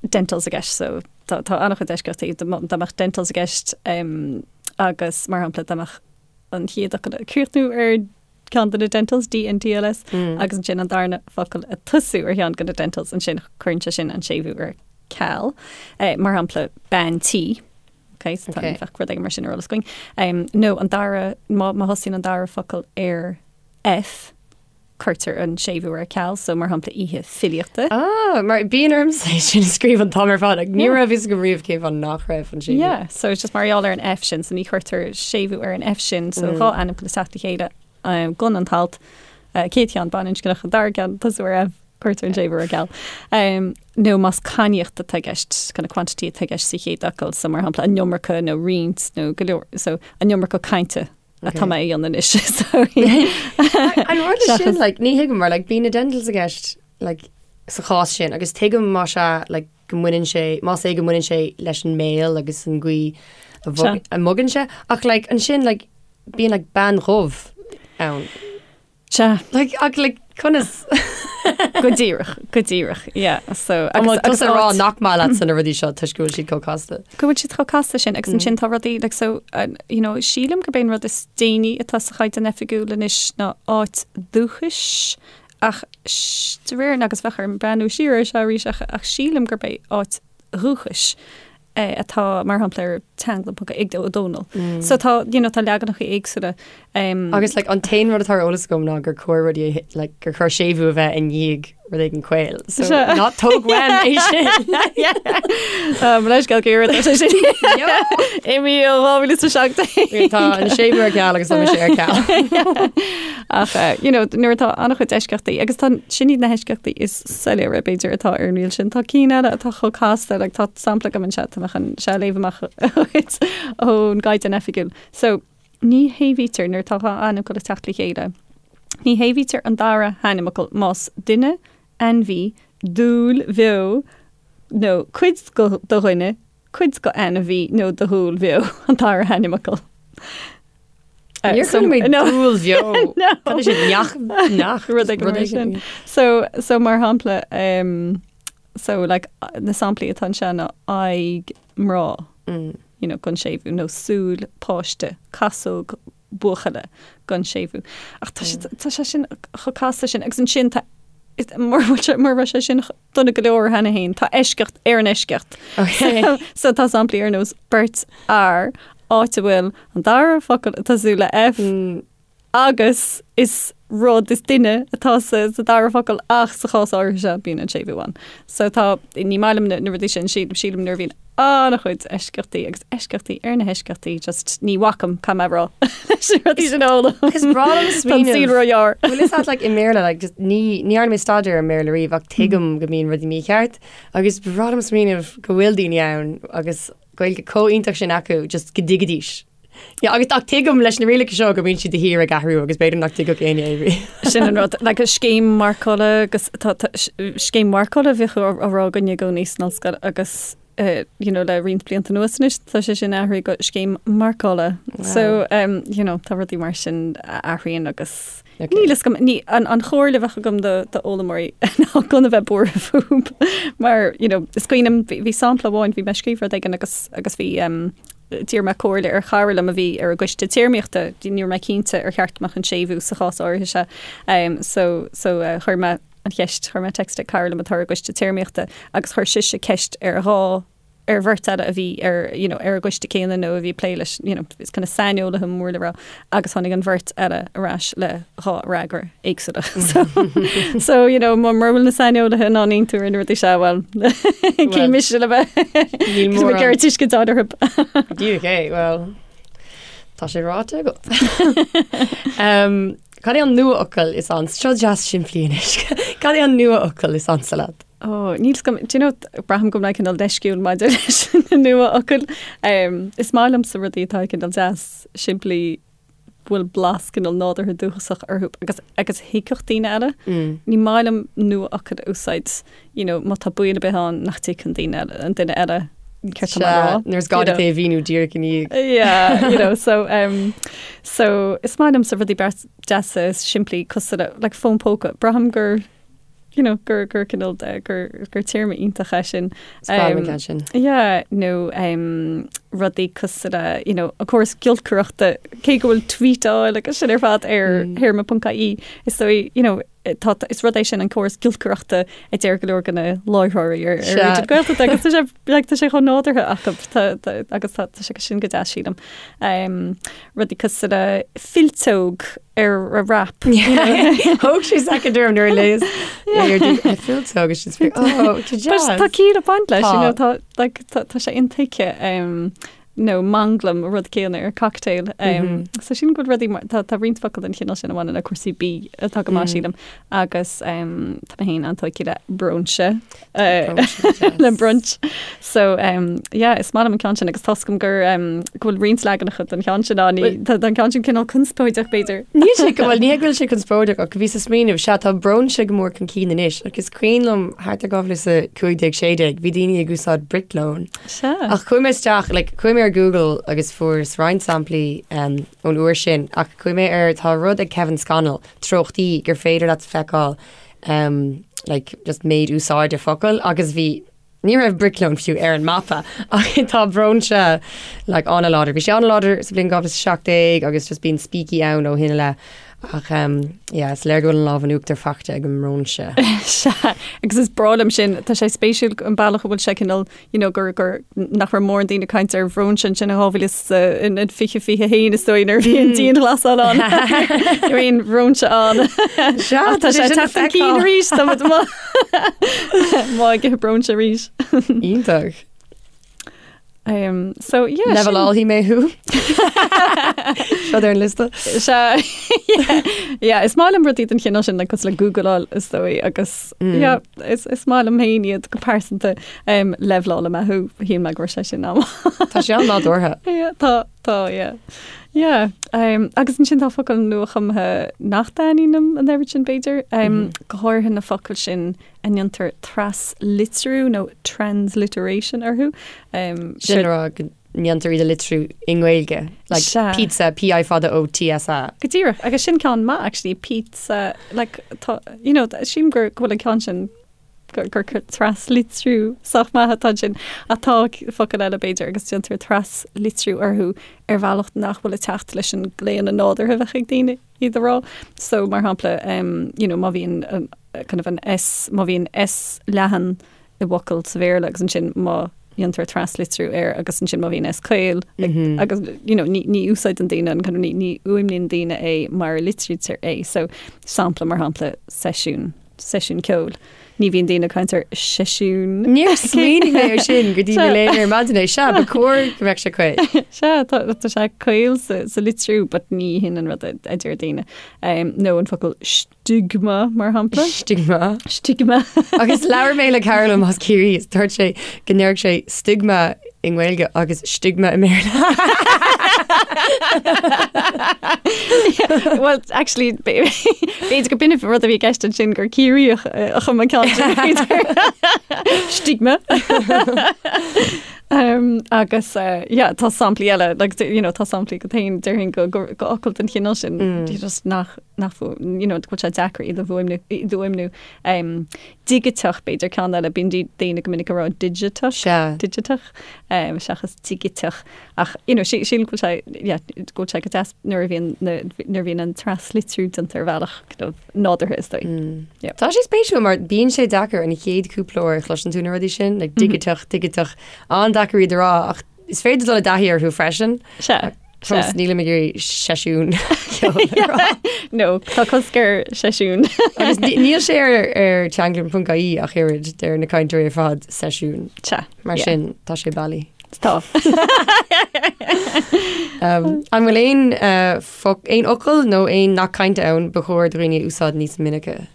dentals i gceist, so tá tá an-chuid eisceachtaí, dá mbeadh dentals i gceist agus mar shampla dá mbeadh. an chéad fhocal ag críochnú ar ceann de na dentals, D N T L S, agus ansin an darna focal ag tosú ar cheann de na dentals, ansin cuireann sé sin an séimhiú ar ceal. Mar shampla, bean tí. Ok, so tá bheadh rud éigin mar sin ar eolas againn. Nó an dara, má thosaíonn an dara focal ar F, cuirtear an séimhiú ar ceal, so mar shampla oíche filíochta. Ah, mar bíonn ormsa é sin a scríobh an t-am ar fad, like, ní raibh fhios agam riamh cén fáth nach raibh an séimhiú. Yeah, so it's just mar gheall ar an F sin, so ní chuirtear séimhiú ar an F sin, so dhá ainmfhocal ag teacht le chéile um, gan an t-alt, uh, céad cheann baininscneach, an dara ceann tosú ar F, cuirtear an séimhiú ar ceal. Um, nó más cainníocht atá i gceist, kind of quantity atá i gceist sa chéad fhocal, so mar shampla an iomarca nó roinnt nó go leor, so an iomarca cainte atá mé a dhéanamh anois. So, An rud é sin, like, ní thuigim mar like, bíonn na dentals i gceist like, sa chás sin agus tuigim más ea like, go mbaineann sé, más é go mbaineann sé leis an mbéal agus an gcaoi a bhog- Sea. a mbogann sé ach like, ansin like, bíonn like, bean dhubh ann. Sea. Like, ach like, conas? Go díreach, go díreach, yeah. So, agus, agus a rá nach maith leatsa na rudaí seo toisc go bhfuil siad chomh casta. Go bhfuil siad chomh casta sin, agus ansin tá rudaí, like, so, uh, you know, sílim gurb é an rud is déanaí atá sa Chaighdeán Oifigiúil anois ná áit dúchais, ach de réir agus bheadh orm breathnú siar air seo arís, ach, ach sílim gurb é áit dhúchais atá mar shampla ar teanglann ponc ag Ó Dónaill. So tá, you know, tá leaganacha éagsúla. Um, Agus like, an t-aon rud atá ar eolas agam ná gur chóir rudaí like, gur chóir séimhiú a bheith i ndiaidh rud éigin caol. So ná tóg uaim é sin. Um, leis go gur sé sin. I 2017. Tá an séimhiú ar ceal agus tá mise ar ceal. Ach eh, you know, nuair atá an-chuid eisceachtaí agus tá sin iad na heisceachtaí is soiléire b'fhéidir atá ar an riail sin. Tá cinn eile atá chomh casta, like, tá sampla agam anseo, tá mé chun seo a léamh amach dhuit ón gCaighdeán Oifigiúil. So, ní shéimhítear nuair atá dhá ainmfhocal ag teacht le chéile. Ní shéimhítear an dara hainmfhocal más duine, ainmhí, dúil bheo nó cuid de dhuine, cuid de ainmhí nó de dhúil bheo an dara hainmfhocal. Níor chuala mé dúil bheo. Cad é sin neach neach rud éigin mar sin. So so mar shampla um, so like na samplaí atá anseo ná aghaidh mná mm. you know, gan séimhiú nó súil páiste casóg buachalla gan séimhiú. Ach tá sé tá sé sin chomh casta sin agus ansin tá mura bhfuil sé mura raibh sé sin dona go leor cheana féin, tá eisceacht ar an eisceacht. Okay. So tá samplaí ar nós beirt fhear, áit a bhfuil an dara focal ag tosú le F agus is rud, is duine atá sa sa dara focal ach sa chás áirithe seo bíonn an séimhiú ann. So tá, ní maith liom na na rudaí sin, sílim sílim nuair a bhíonn an-chuid eisceachtaí agus eisceachtaí ar na heisceachtaí, just ní bhacaim, caithfidh mé a rá, leis na rudaí sin a fhoghlaim. Is breá liom Tá an smaoineamh. saol róghearr. Bhfuil fhios agat like i mBéarla like just ní ní dhearna mé staidéar ar an mBéarla riamh ach tuigim go mbíonn rudaí mícheart agus ba bhreá liom smaoineamh go bhfuil daoine ann agus Gaeilge chomh iontach sin acu just go dtuigfidís. Yeah, agus ach tuigim leis na rialacha seo go mbíonn siad de shíor ag athrú agus b'fhéidir nach dtuigfeadh éinne é riamh. Sin an rud, like scéim marcála agus tá tá scéim marcála a bhíodh á á rá againne i gcónaí san ollscoil agus eh, you know, le roinnt blianta anuas anois tá sé sin athraithe go scéim marcála. So um, you know, tá rudaí mar sin a athraíonn agus Okay. Níl fhios agam, ní, an, an chomhairle a bheadh agam do, do fhoghlaimeoirí ná gan a bheith buartha fúthu mar, you know, is cuimhin liom, bhí, bhí sampla amháin, bhí mé ag scríobh rud éigin agus, agus bhí, um, d'iarr mé comhairle ar chara liom a bhí ar an gcoiste téarmaíochta, ní raibh mé cinnte ar cheart go mbeadh an séimhiú sa chás áirithe seo. Um, so, so uh, chuir mé an cheist, chuir mé text ag cara liom atá ar an gcoiste téarmaíochta agus chuir sise ceist ar dhá ar bheirt eile a bhí ar, you know, ar an gcoiste céanna nó a bhí ag plé leis, you know, is kind of saineolaithe mór le rá, agus tháinig an bheirt eile ar ais le dhá fhreagra éagsúla. So, so, you know, mura bhfuil na saineolaithe in ann aontú ar na rudaí seo, well, cé mise le bheith Níl Cos mé mórán. ag tuiscint orthu. Díreach é, well, tá sé ráite agat. um, cad é an nuafhocal is ansa? Seo deas simplí anois. Cad é an nuafhocal is ansa leat? Ó, níl 's agam, do you know, braithim go bhfuil mé cineál leisciúil maidir leis na nuafhocail. Um, is maith liomsa rudaí atá cineál deas, simplí, bhfuil blas cineál nádúrtha dúchasach orthu agus agus thuigfeadh daoine eile. Mm. Ní maith liom nuafhocail a úsáid, you know, má tá baol ar bith ann nach dtuigfeadh an duine eile, an duine eile céard tá mé a rá. Nuair is gá duit é a mhíniú díreach i ndiaidh. Yeah, you know, so, um, so is maith liomsa rudaí beart deasa is simplí cosúil le, like fón póca. Braithim gur you know, gur, gur cineál de, gur, gur téarma iontach é sin. Is breá liom an ceann sin. Yeah, nó um, rudaí cosúil le, you know, an córas giolcaireachta, cé go bhfuil tweetáil agus sin ar fad ar théarma ponc ie, is dóigh, you know, tá, is rud é sin an córas giolcaireachta a deir go leor de na láithreoirí ar ar Raidió na Gaeltachta agus tá sé, like, tá sé chomh nádúrtha acu, tá, tá, agus tá, tá sé sin go deas sílim. Um, rudaí cosúil le fillteog ar a wrap. Thóg sé soicind orm nuair a léas fillteog agus sin oh, Tá ciall ag baint leis, you know, tá, like, tá, tá sé intuigthe um, nó manglam rud céanna ar cocktail. Um, So sin go rudaí mar- tá, tá roinnt focal den chineál sin a bhaineann le cúrsaí bídh atá go maith sílim agus um, tá mé féin an-tógtha le bróinse uh, le brunch. So um, yeah, is maith liom an ceann sin agus tá a fhios agam gur um, go bhfuil roinnt leaganacha den cheann sin ann, ní- Tá an ceann sin cineál conspóideach b'fhéidir. Níl sé go bhfuil ní go bhfuil sé conspóideach ach bhíos ag smaoineamh sea tá bróinse go mór chun cinn anois agus is cuimhin liom thart ar 2015 16 bhí daoine ag úsáid briclón. Sea. Ach chuaigh mé isteach like, chuaigh mé ar Google agus fuaireas roinnt samplaí um, ón uair sin ach chuaigh mé ar tá rud ag Kevin Scannell treochtaí gur féidir leat feiceáil um, like, just méid úsáide focal agus bhí ní raibh briclón fiú ar an mapa ach tá bróinse like, an-láidir. Bhí sé an-láidir sa bhliain 2017 agus just bíonn spící ann ó shin i leith. Ach um, yeah, is léir go bhfuil an lámh in uachtar faighte ag an mbróinse. Sea, agus is breá liom sin, tá sé spéisiúil an bealach a bhfuil sé cineál you know, gur, gur, nach raibh mórán daoine ag caint ar bhróinse ansin in 2021 is dóigh nuair a bhí an dianghlasáil ann. Ní raibh aon bhróinse ann. Sea, Ach tá sé ag teacht chun cinn arís, tá muid amuigh ag ithe bróinse arís. Iontach. Um, so, yeah, sin- Levelálfaidh mé thú. Seo ar an liosta. Sea, yeah, yeah, is maith liom rudaí den chineál sin, like, cosúil le Googleáil is dóigh agus yeah, is, is maith liom féin iad go pearsanta um, leibhleálfaidh mé thú, shíl mé go raibh sé sin am. Tá sé an-nádúrtha. Yeah, tá, tá, yeah. Yeah, um, agus ansin tá focail nuachumtha nach dtaitníonn liom an oiread sin b'fhéidir, um, go háirithe na focail sin a ndéantar traslitriú nó transliteration orthu. Um, Sin le rá go ndéantar iad a litriú i nGaeilge, like Sea. pizza, P-I fada O-T-S-A. Go díreach, agus sin ceann maith actually, pizza, like, tá, you know, sílim gur go bhfuil an ceann sin gur gur traslitriú sách maith atá ansin, ach tá focail eile b'fhéidir agus déantar traslitriú orthu ar bhealach nach bhfuil ag teacht leis an gclaonadh nádúrtha a bheadh ag daoine iad a rá. So, mar shampla, um, you know, má bhíonn an, kind of an S, má bhíonn S leathan i bhfocal sa Bhéarla agus ansin má dhéantar traslitriú air agus ansin má bhíonn S caol agus you know, ní, ní úsáideann daoine an kind of, ní, ní fhuaimníonn daoine é mar a litrítear é. So, sampla mar shampla seisiún, seisiún ceoil. Ní bhíonn daoine ag caint ar seisiún. Níor smaoinigh mé ar sin go dtí mo léamh ar maidin é. Sea, ba chóir go mbeadh sé caol. Sea, tá, tá sé caol sa, sa litriú, but ní hin an rud a, a deir daoine. Um, nó an focal stigma, mar shampla. Stigma. Stigma. Agus labhair mé le cara liom as Ciarraí is dúirt sé go ndéarfadh sé stigma i nGaeilge agus stigma i mBéarla. Well, actually, b'fhéidir go b'in an rud a bhí i gceist ansin gur Ciarraíoch a chum an ceann sin, b'fhéidir. Stigma. Um, agus uh, yeah, tá samplaí eile, like, you know, tá samplaí go féin déarfainn go, go, go fhocail den chineál sin mm. just nach nach fu, you know, go bhfuil sé deacair iad a fhuaimniú, iad a fhuaimniú. Um, digiteach b'fhéidir ceann eile, bíonn daoine go minic ag rá digiteach, Sea. digiteach, um, seachas digiteach. Ach, you know, sí, sílim go bhfuil sé, yeah, go bhfuil sé go deas nuair a bhíonn na, nuair a bhíonn an traslitriú déanta ar bhealach kind of nádúrtha is dóigh. Mm. Yeah. Tá sé spéisiúil mar bíonn sé deacair an chéad cúpla uair a chloiseann tú na rudaí sin, like digiteach, digiteach, an-deacair iad a rá ach is féidir dul i dtaithí orthu freisin. Sea. Fós nílim ag iarraidh seisiún ceoil a rá. No, tá cosc ar seisiún. Agus níl sé ar ar teanglann.ie ach oiread deir na cainteoirí ar fad seisiún. Sea. Mar yeah. sin tá sé bailí. Tá. Um, an bhfuil aon uh, foc, aon fhocal nó aon nath cainte ann ba chóir do dhaoine a úsáid níos minice?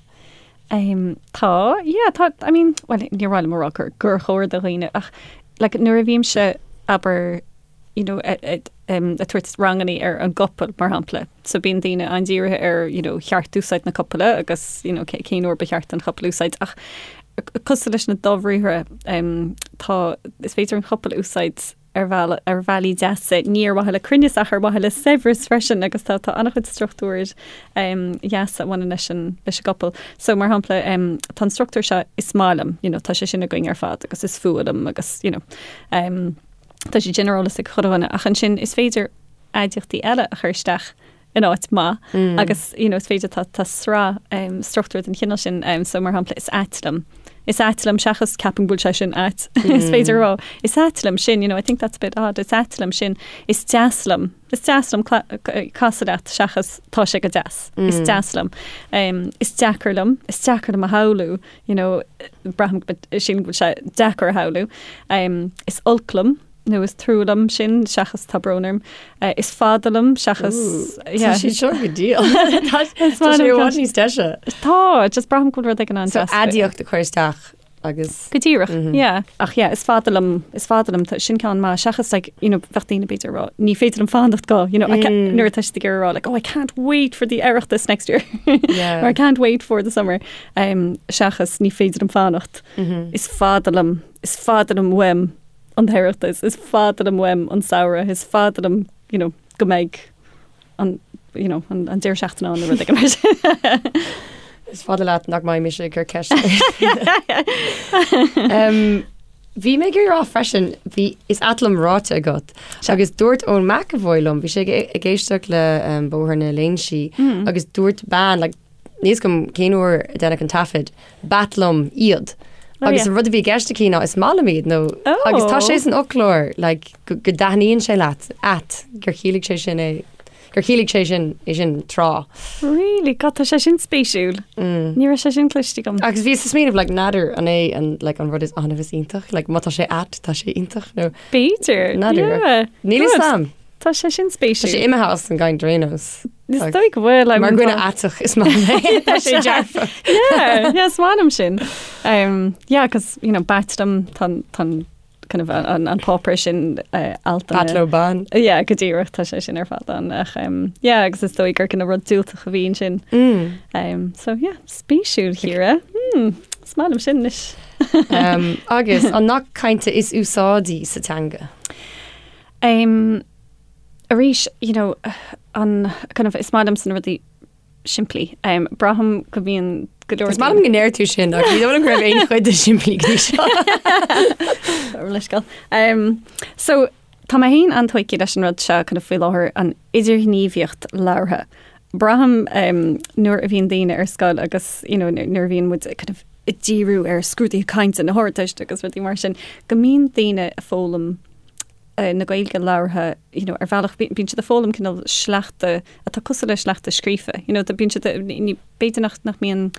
Um, tá, yeah, tá, I mean, well, níor mhaith liom a rá gur, gur chóir do dhaoine ach like, nuair a bhímse abair you know, ag tabhairt rangannaí ar an gcopail, mar shampla. So bíonn daoine an-dírithe ar, you know, cheart-úsáid na copaile agus, you know, cén uair ba cheart an chopail a úsáid. Ach cosúil leis na dobhriathra, tá, is féidir an chopail a úsáid ar bheal, ar bhealaí deasa, ní ar mhaithe le cruinneas ach ar mhaithe le saibhreas freisin agus tá, tá an-chuid struchtúir dheasa a bhaineann leis an, leis an gcopail. So mar shampla, tá an struchtúr seo is maith liom, you know, tá sé sin againn ar fad agus is fuath liom agus, you know. Tá siad sin ar eolas ag chuile dhuine ach ansin is féidir aidiachtaí eile a chur isteach in áit maith agus you know, is féidir tá, tá sraith um, struchtúr den chineál sin um, so mar shampla is ait liom. Is ait liom seachas ceapaim go bhfuil sé sin ait. Is féidir a rá is ait liom sin, you know, I think that's a bit odd. Is ait liom sin. Is deas liom. Is deas liom casadh leat seachas tá sé go deas. Is deas liom. Um, is deacair liom. Is deacair liom a shamhlú, you know, braithim go sílim go bhfuil sé deacair a shamhlú. Um, is olc liom nó is trua liom sin seachas tá brón orm. Uh, is fada liom seachas Tá sé seo go diail. Tá sé i bhfad níos deise. Tá, just braithim go bhfuil rud éigin an-deas. So aidiacht a chur isteach agus. Go díreach, yeah. Ach yeah, is fada liom, is fada liom, sin ceann maith, seachas like, you know, bheadh daoine b'fhéidir ag rá, ní féidir liom fanacht go, you know, I can't, nuair atá siad ag iarraidh a rá like, oh, I can't wait for the Oireachtas next year. Yeah. Or I can't wait for the summer. Um, seachas ní féidir liom fanacht. Is fada liom, is fada liom uaim an tOireachtas, is fada liom uaim an samhradh, is fada liom, you know, go mbeidh an, you know, an, an deireadh seachtaine ann nó rud éigin mar sin. Is fada leat nach mbeidh mise ag cur ceist. um, Bhí mé ag rá freisin, bhí is ait liom ráite agat. Agus dúirt Eoin McEvoy liom, bhí sé ag, ag éisteacht le um, Bóthar na Léinsí mm. agus dúirt bean like, níl a fhios agam cén uair a deineadh an taifead, b'ait liom iad. Oh, agus an rud a bhí i gceist aici ná is maith liom iad nó oh. agus tá sé san fhoclóir like, go, go dtaitníonn sé leat ait gur chiallaigh sé sin é gur chiallaigh sé sin é sin tráth. Really? God, tá sé sin spéisiúil. Mm. Ní raibh sé sin cloiste agam. Agus bhíos ag smaoineamh like, n'fheadar an é an, like, an rud is annamh is iontach, like, má tá sé ait tá sé iontach nó B'fhéidir. N'fheadar. Yeah. Níl a fhios agam. Tá sé sin spéisiúil. Tá sé imithe as an gcaint ar aon nós. Is dóigh go bhfuil. Mar dhuine aiteach is maith liom é. Tá sé dearfach. Yeah, yeah, is maith liom sin. Um, yeah, cos, you know, b'ait liom tá tá kind of an, an páipéar sin uh, alt B'ait leo bean. Yeah, go díreach tá sé sin ar fad ann ach um, yeah, agus is dóigh gur kind of rud diúltach a bhí ansin. Mm. Um, so yeah, spéisiúil Chiara. Hmm, is maith liom sin anois. Um, agus an nath cainte is úsáidí sa teanga. Um, arís, you know, an kind of, is maith liomsa na rudaí simplí. Um, braithim go mbíonn go leor Is maith liom go ndeir tú sin ach ní dóigh liom go raibh aon chuid de simplí go dtí seo. Leithscéal. Um, so, tá mé féin an-tógtha leis an rud seo kind of faoi láthair an idirghníomhaíocht labhartha. Braithim um, nuair a bhíonn daoine ar scoil agus you know, nuair a bhíonn muid kind of ag díriú ar scrúduithe cainte na hArdteiste agus rudaí mar sin, go mbíonn daoine ag foghlaim na Gaeilge labhartha, you know, ar bhealach bíonn siad ag foghlaim cineál sleachta atá cosúil le sleachta scríofa, you know, bíonn siad, ní, b'fhéidir nach, nach mbíonn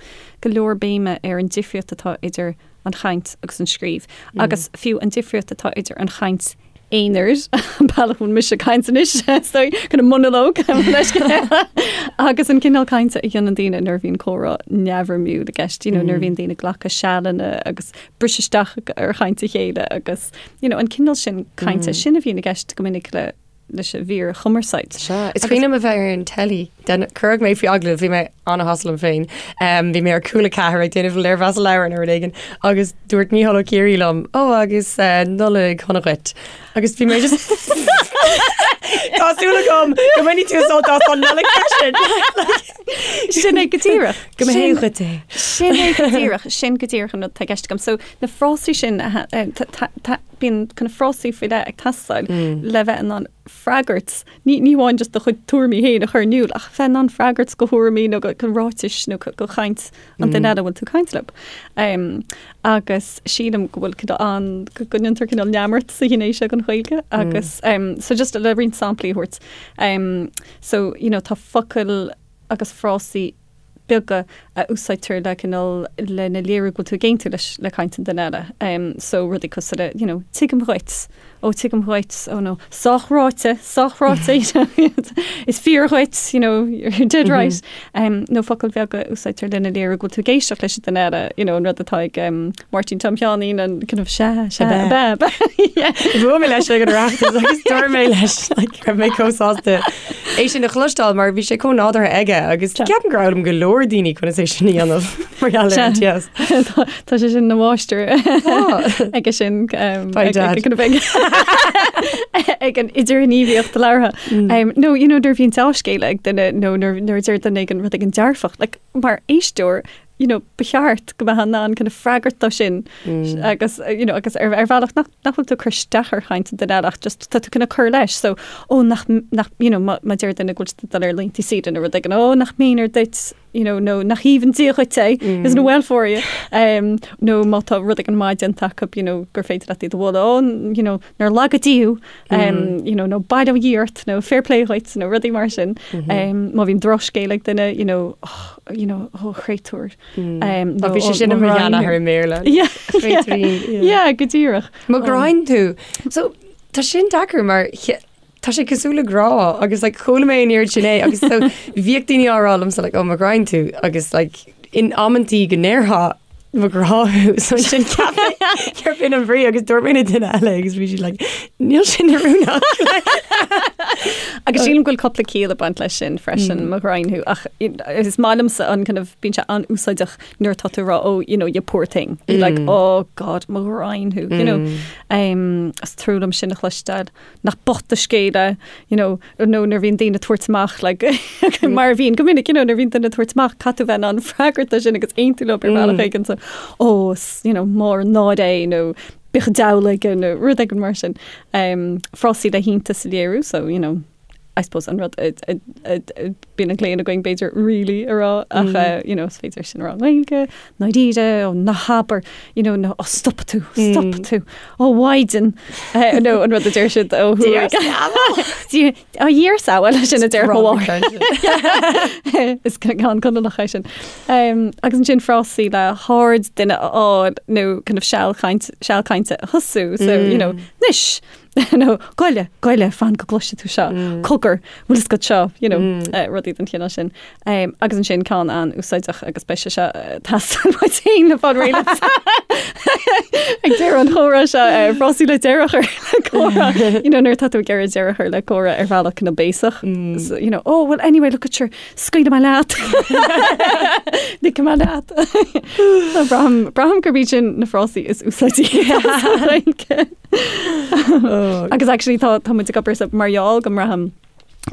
go leor béime ar an difríocht atá idir an chaint agus an scríobh, agus fiú an difríocht atá idir an chaint aonair, an bealach a bhfuil mise ag caint anois, so, kind of monalóg, agus an cineál cainte a dhéanann daoine nuair a bhíonn comhrá neamhfhoirmiúil i gceist, you know, nuair a bhíonn daoine ag glacadh sealanna agus briseadh isteach ar chaint a chéile agus you know, an cineál sin cainte sin a bhíonn i gceist go minic le leis an bhfíorchumarsáid. Sea, is cuimhin liom a bheith ar an teilí, cuireadh mé faoi agallamh, bhí mé an-shásta liom féin, bhí mé ar Cúla 4 ag déanamh léirmheas leabhar nó rud éigin agus dúirt Mícheál Ó Ciaraidh liom, ó agus Nollaig shona dhuit. Agus bhí mé just Tá súil agam go mbainfidh tú sult as an Nollaig freisin! Sin é go díreach. Go mba hé dhuit é. Sin é go díreach, sin go díreach an rud atá i gceist agam. So na frásaí sin, bíonn kind of frásaí faoi leith ag teastáil le bheith in ann freagairt, ní ní amháin just do chuid tuairimí féin a chur in iúl, ach bheith in ann freagairt do thuairimí nó go go ráitis nó go chaint an duine eile a bhfuil tú ag caint leo. Agus sílim go bhfuil cineál an, go ndéantar cineál neamart sa ghné seo den Ghaeilge agus so just le roinnt samplaí a thabhairt. So, you know, tá focail agus frásaí beaga a úsáidtear le cineál lena léiriú go bhfuil tú ag aontú leis le caint an duine eile. Um, so rudaí cosúil le, you know, tuigim dhuit, ó tuigim dhuit, ó nó sách ráite, sách ráite, you know, is fíor dhuit, you know, you're dead right. Um, nó focail bheaga a úsáidtear lena léiriú go bhfuil tú ag éisteacht leis an duine eile, you know, an rud atá ag um, Máirtín Tom Sheáinín an kind of sea, sea, ab ea, ab ea. Yeah. Bhuail mé leis ag an Oireachtas agus dúirt mé leis like, raibh mé chomh sásta é sin a chloisteáil mar bhí sé chomh nádúrtha aige agus ceapaim gur fhoghlaim go leor daoine conas é sin a dhéanamh mar gheall ar an TS. Tá tá sé sin ina mháistir aige sin um, By ag- dad. ag- kind of ag ag an idirghníomhaíocht labhartha. Um, nó you know, nuair a bhíonn dea-scéala ag duine nó nuair nuair a deir duine éigin rud éigin dearfach, like, mar éisteoir. you know, ba cheart go mbeifeá in ann kind of freagairt dó sin agus, you know, agus ar, ar bhealach nach, nach bhfuil tú ag cur isteach ar chaint an duine eile ach just tá tú kind of cur leis. So, ó, nach, nach, you know, má, má deir duine go bhfuil siad ag dul ar laethanta saoire nó rud éigin, ó, nach méanar duit, you know, nó nach aoibhinn Dia dhuit é, isn't it well for you? Um, nó má tá rud éigin maith déanta acu, you know, gur féidir leat iad a mholadh, ó, you know, nár laga Dia thú, um, you know, nó bail ó Dhia ort, nó fair play dhuit, nó rudaí mar sin. Um, má bhíonn drochscéal ag duine, you know, oh, you know, oh, créatúr. Um, nó, bhí sé sin i mo sheanathair i mBéarla. Yeah, yeah, yeah, go díreach. Mo ghraidhin tú. So, tá sin deacair mar tá sé cosúil le grá agus like, chuala mé an oiread sin é agus so, bhíodh daoine á rá liomsa like, oh, mo ghraidhin tú agus like, in amantaí go ndéarfá mo ghrá thú so ansin cheap mé gurb in an bhrí agus dúirt mé le duine eile agus bhí siad like níl sin oiriúnach. Agus sílim go bhfuil cúpla ciall ag baint leis sin freisin mo ghraidhin thú ach is maith liomsa an kind of bíonn sé an-úsáideach nuair atá tú ag rá oh you know you poor thing mm. like oh god mo ghraidhin thú you know um, is trua liom sin a chloisteáil nach bocht do scéal é, you know, nó nuair a bhíonn daoine ag tabhairt amach like, mar a bhíonn go minic, you know, nuair a bhíonn duine ag tabhairt amach caithfidh tú bheith in ann freagairt dó sin agus aontú leo ar bhealach éigin so oh, is, you know, mór an náire é nó bíodh an diabhal aige nó rud éigin mar sin. Um, frásaí le hiontas a léiriú, so, you know, I suppose an rud a, a, a, a, bíonn an claonadh againn b'fhéidir really a rá ach uh, you know, is féidir sin a rá i nGaeilge, ndáiríre, ó ná habair, you know, nó ó stop tú, stop tú, ó mhaighdean, eh, nó an rud a deir siad ó thuaidh. Ó Dhia ár sábháil sin a deir mo mháthair. Is ceann Conallach é sin. Um, agus ansin frásaí le haird duine a fháil nó kind of seal caint, seal cainte a thosú, so, you know, anois, nó goile, goile, fan go gcloisfidh tú seo, cogar, bhfuil fhios agat seo, you know, rudaí den chineál sin. Um, agus ansin ceann an-úsáideach agus beidh sé seo ag teastáil uait féin le fáil réidh ag deireadh an chomhrá seo, uh, frásaí le deireadh a chur le comhrá, you know, nuair atá tú ag iarraidh deireadh a chur le comhrá ar bhealach kind of béasach. So, you know, oh, well, anyway, look at sure, scaoilfidh mé leat. Ligfidh mé leat. So, braithim, braithim gurb iad sin na frásaí is úsáidí. Agus actually tá tá muid ag obair sa mar gheall go mbraithim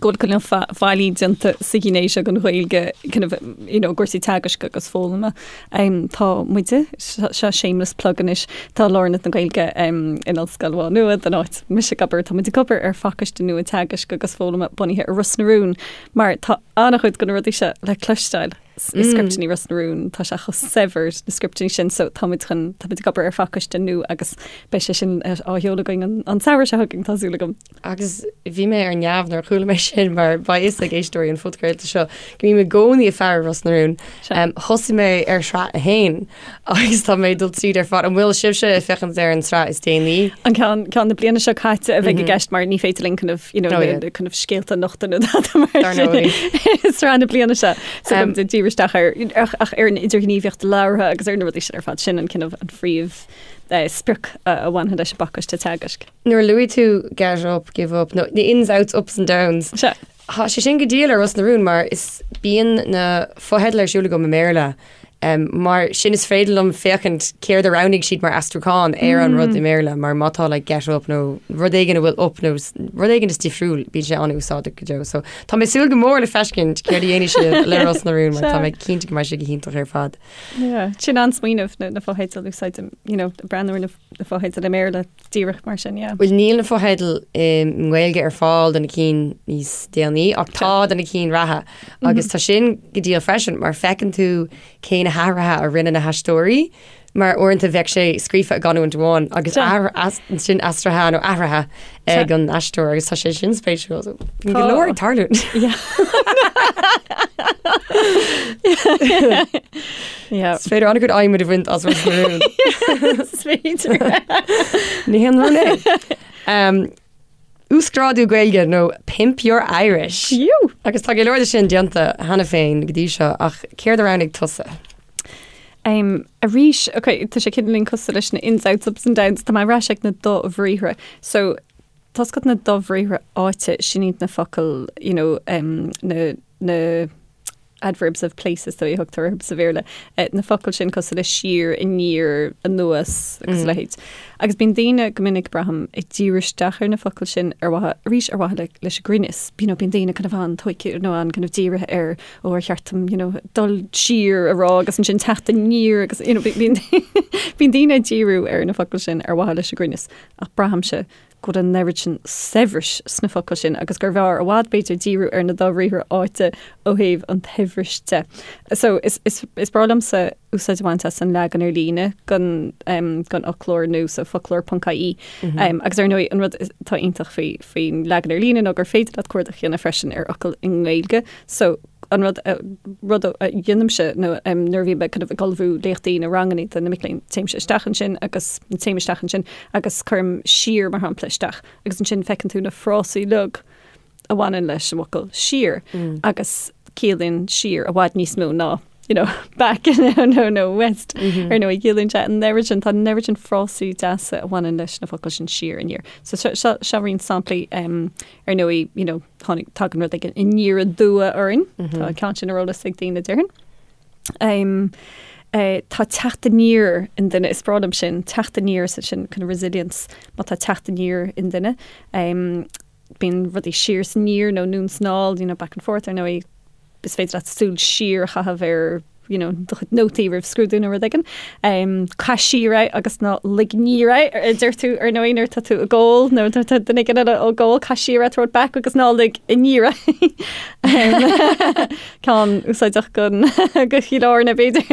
go bhfuil cineál faillí déanta sa ghné seo den Ghaeilge kind of, you know, cúrsaí teagaisc agus foghlama. Um, tá muide, seo shameless plug anois, tá Lárionad na Gaeilge um, in Ollscoil Mhá Nuad, an áit mise ag obair, tá muid ag obair ar phacáiste nua teagaisc agus foghlama bunaithe ar Ros na Rún, mar tá an-chuid de na rudaí seo le cloisteáil. i scripteanna Ros na Rún, tá sé chomh saibhir na scripteanna sin so tá muid chun, tá muid ag obair ar phacáiste nua agus beidh sé sin á sheoladh againn an, an samhradh seo chugainn, tá súil agam. Agus bhí mé ar neamh nuair a chuala mé sin mar beidh fhios ag éisteoirí an phodchraolta seo go mbím i gcónaí ag faire Ros na Rún. Um, thosaigh mé ar shraith a haon agus tá mé ag dul tríd ar fad. An bhfuil sibhse ag féachaint ar an tsraith is déanaí? An ceann, ceann na bliana seo caite a bheidh i gceist mar ní féidir linn kind of, you know, Oh, yeah. na, kind of scéalta a nochtadh nó dada mar Dar sin. ndóigh. Sraith na bliana seo. So um, díriú isteach ar, ach, ach ar an idirghníomhaíocht labhartha agus ar na rudaí sin ar fad sin an kind of an phríomh eh, sprioc a, a bhainfidh leis an bpacáiste teagaisc. Nuair a luaigh tú get up, give up, no, the ins, outs, ups and downs. Sea. Tá sé sin go diail ar Ros na Rún mar is bíonn na fotheidil ar siúl agam i mBéarla mar sin is féidir liom féachaint céard a roghnaigh siad mar aistriúchán ar an rud i mBéarla mar má tá like get up nó rud éigin a bhfuil up nó rud éigin is difriúil bíonn sé an-úsáideach go deo. So tá mé ag súil go mór le feiscint céard a dhéanfaidh siad le Ros na Rún mar tá mé cinnte go mbeidh sé go hiontach ar fad. Yeah, sin an-smaoineamh na, na fotheidil a úsáid, you know, breathnú ar na, na fotheidil i mBéarla. Díreach mar sin, yeah. Bhuel, níl na fotheidil i nGaeilge ar fáil do na cinn níos déanaí, ach tá do na cinn reatha. Agus tá sin go diail freisin, mar feiceann tú cé na hathruithe a rinne na haisteoirí, mar uaireanta bheadh sé scríofa i gcanúint amháin agus ansin aistrithe nó athraithe ag an aisteoir agus tá sé sin spéisiúil. So, bíonn go leor ag tarlú. Yeah. Is féidir an-chuid adhmaid a bhaint as Ros na Rún. Is féidir. Ní haon rún é. Um, Uasghrádú Gaeilge nó Pimp Your Irish. Fiú. Agus tá go leor de sin déanta cheana féin go dtí seo ach céard a roghnaigh tusa? Um, arís, ok, tá sé cineáilín cosúil leis na ins, outs, ups and downs, tá mé ar ais ag na dobhriathra. So, tá a fhios agat na dobhriathra áite, sin iad na focail, you know, um, na, na. adverbs of place is dóigh a thugtar orthu sa Bhéarla, na focail sin cosúil le siar, aniar, anuas agus a leithéid. Agus bíonn daoine go minic, braithim, ag díriú isteach ar na focail sin ar mhaithe, arís ar mhaithe le, leis an gcruinneas. You know, bíonn daoine kind of an-tógtha nó an-kind of dírithe ar, ó ar cheart dom, you know, dul siar a rá agus ansin teacht aniar agus, you know, bíonn, bíonn daoine ag díriú ar na focail sin ar mhaithe leis an gcruinneas. Ach braithimse go bhfuil an oiread sin saibhris sna focail sin agus gurbh fhearr i bhfad, b'fhéidir, díriú ar na dobhriathra áite ó thaobh an tsaibhris de. So, is, is, is breá liomsa úsáid a bhaint as an leagan ar líne den, um, den fhoclóir nua, so foclóir ponc ie. Mm -hmm. um, agus ar ndóigh, an rud atá iontach faoi, faoin leagan ar líne ná gur féidir leat cuardach a dhéanamh freisin ar fhocal i nGaeilge. So, an rud, rud a dhéanaimse nó nuair a bhím kind of ag ullmhú léachtaí nó ranganna do na mic léinn, téimse isteach ansin agus, téim isteach ansin agus cuirim siar mar shampla isteach agus ansin feiceann tú na frásaí uilig a bhaineann leis an bhfocal siar agus ciallaíonn siar i bhfad níos mó ná you know, back nó nó west ar ndóigh ciallaíonn sé an oiread sin tá an oiread sin frásaí deasa a bhaineann leis na focail sin siar aniar. So seo seo roinnt samplaí um, ar ndóigh you know, Tháinig, tagann rud éigin aniar aduaidh orainn. Tá an ceann sin ar eolas ag daoine déarfainn. Um, eh, tá teacht aniar i nduine, is breá liom sin, teacht aniar sa sin kind of resilience, má tá teacht aniar i nduine. Um, bíonn rudaí siar is aniar nó anonn is anall, you know, back and forth ar ndóigh, is féidir leat súil siar a chaitheamh ar you know, do chuid nótaí roimh scrúdú nó rud éigin. Um, caith siar é agus ná lig aniar é, a deir tú ar ndóigh nuair atá tú ag ól nó nuair atá duine éigin eile ag ól, caith siar é, throw it back agus ná lig aniar é. Um, ceann úsáideach don go Chill Airne b'fhéidir.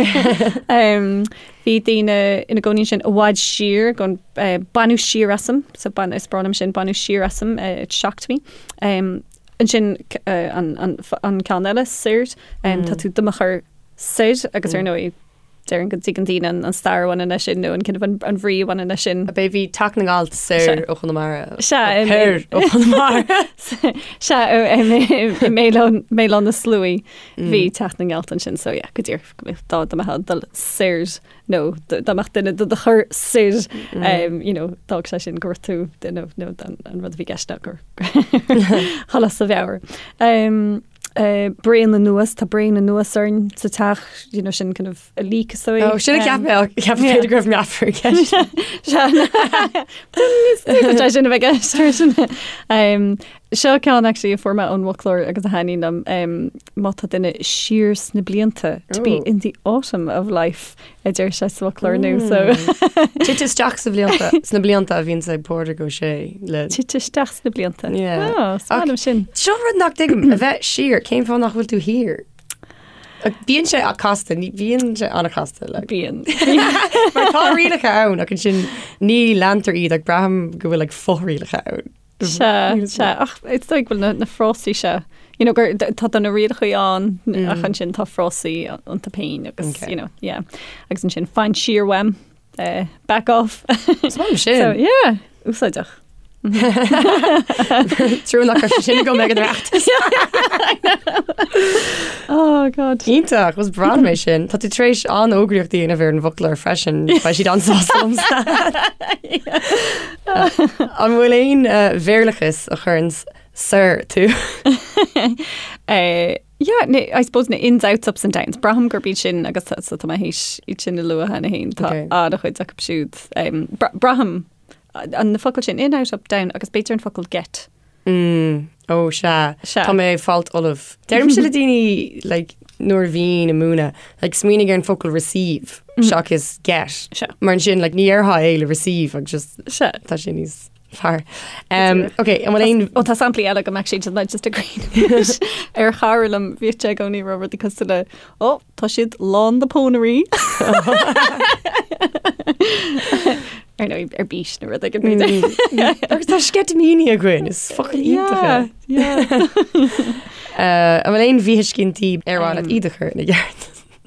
Um, bhí daoine ina gcónaí ansin i bhfad siar gon uh, baineadh siar asam, so bain, is breá liom sin, baineadh siar asam, uh, it shocked me. Um, Ansin an ceann eile, soir, tá tú do mo chur soir agus ar ndóigh déarfainn go dtuigeann daoine an stair a bhaineann leis sin nó an kind of an bhrí a bhaineann leis sin. Ab é bhí Teach na nGealt soir ó Chonamara? Sea. Thoir ó Chonamara. Sea, i mBéal Átha na Sluaighe bhí Teach na nGealt ansin so yeah, go díreach dá mbeifeá ag dul soir nó dá mbeadh duine do do chur soir you know, d'fhág sé sin go raibh tú nó nó an rud a bhí i gceist ná gur dhul as do mheabhair. Um, uh, braon anuas, tá braon anuas orainn sa teach, you know, sin kind of a leak is dóigh. Oh, sin a cheap mé, cheap mé go raibh meafar i gceist. Sé sin a bheith i gceist freisin. Um, Seo ceann actually a fuair mé ón bhfoclóir agus a thaitníonn liom, um, má tá duine siar sna blianta, to be in the autumn of life, a deir sé sa bhfoclóir nua, so. Tite isteach sa bhlianta, sna blianta a bhíonns ag Pádraig Ó Sé le. Tite isteach sna blianta. Yeah. Oh, is maith liom sin. Seo rud nach dtuigim, a bheith siar, cén fáth nach bhfuil tú thiar? Bíonn sé casta, ní bhíonn sé an-chasta. Like. Bíonn. Mar tá rialacha ann ach ansin ní leantar iad ach braithim go bhfuil like, fothrialacha ann. Sea, sea, ach is dóigh go bhfuil na, na frásaí seo, you know, gur, tá tá na rialacha ann mm. ach ansin tá frásaí iontu féin agus, okay. you know, yeah. Agus ansin fan siar uaim, uh, back off. Is maith liom sin. So, yeah, úsáideach. Trua nach raibh sin agam ag an Oireachtas. Oh God. Iontach, is breá liom é sin. Tá tú tar éis an-fhógraíocht a dhéanamh ar an bhfoclóir freisin, beidh siad an-sásta liomsa. An bhfuil aon Bhéarlachas a chuireann soir tú? Yeah, na, I suppose na ins, outs, ups and downs. Braithim gurb iad sin agus tá, so tá mé théis iad sin a lua cheana féin. Tá Okay. an-chuid acu siúd. Um, bra- braithim an na focail sin in, out, up, down agus b'fhéidir an focal get. Mm, ó sea. Sea. Tá mé ag fáilt ullamh. Deirimse le daoine like, nuair a bhínn ag múineadh, like, smaoinigh ar an focal receive seachas get. Sea. Mar ansin like, ní déarfá é le receive agus just Sea. tá sé níos fearr. Um, ok, an bhfuil aon Ó tá samplaí eile agam actually just just ag cuimhneamh ar chara liom bhíodh sé i gcónaí ag rá rudaí cosúil le ó tá siad lán de pónairí. Ar ndóigh ar bís nó rud éigin b'fhéidir. Agus tá sceitimíní againn, is focal iontach é. Yeah, yeah. Uh, an bhfuil aon mhíthuiscintí ar mhaith leat iad a chur ina gceart?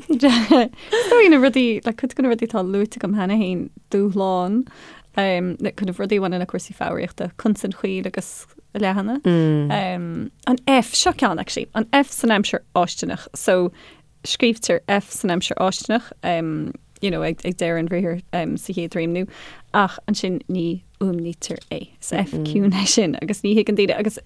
Is dóigh na rudaí, like, cuid de na rudaí atá luaite agam cheana féin, dúshlán, um, na kind of rudaí a bhaineann le cúrsaí foghraíochta, consain chaol agus leathana. Um, an F, seo ceann actually, an F san aimsir fháistineach. So, scríobhtar F san aimsir fháistineach, um, you know, ag, ag deireadh an bhriathair um, sa chéad réimniú, ach ansin ní fhuaimnítear é. Is F ciúin é sin agus ní thuigeann daoine agus.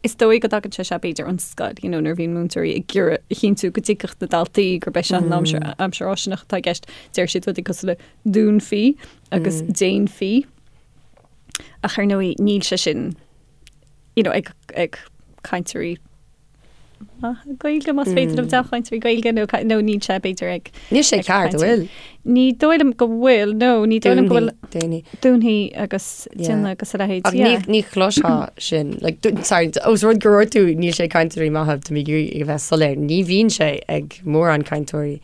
Is dóigh go dtagann sé seo b'fhéidir ón scoil, you know, nuair a bhíonn múinteoirí ag iarraidh a chinntiú go dtuigfeadh na daltaí gurb é seo an aimsir, aimsir fháistineach atá i gceist, deir siad rudaí cosúil le dúnfaí agus déanfaí. Ach ar ndóigh níl sé sin, you know, ag, ag cainteoirí maithe Gaeilge, más féidir liom dea-chainteoirí Gaeilge nó nó níl sé b'fhéidir ag Níl sé ceart, an bhfuil? Ní dóigh liom go bhfuil, no, ní dóigh liom go bhfuil Dúnfaí. Dúnfaí agus déanfaí agus a leithéid, Ach ní, ní chloisfeá sin. Like, sorry, os rud gur dúirt tú níl sé ag cainteoirí maithe, tá mé ag iarraidh a bheith soiléir, ní bhíonn sé ag mórán cainteoirí.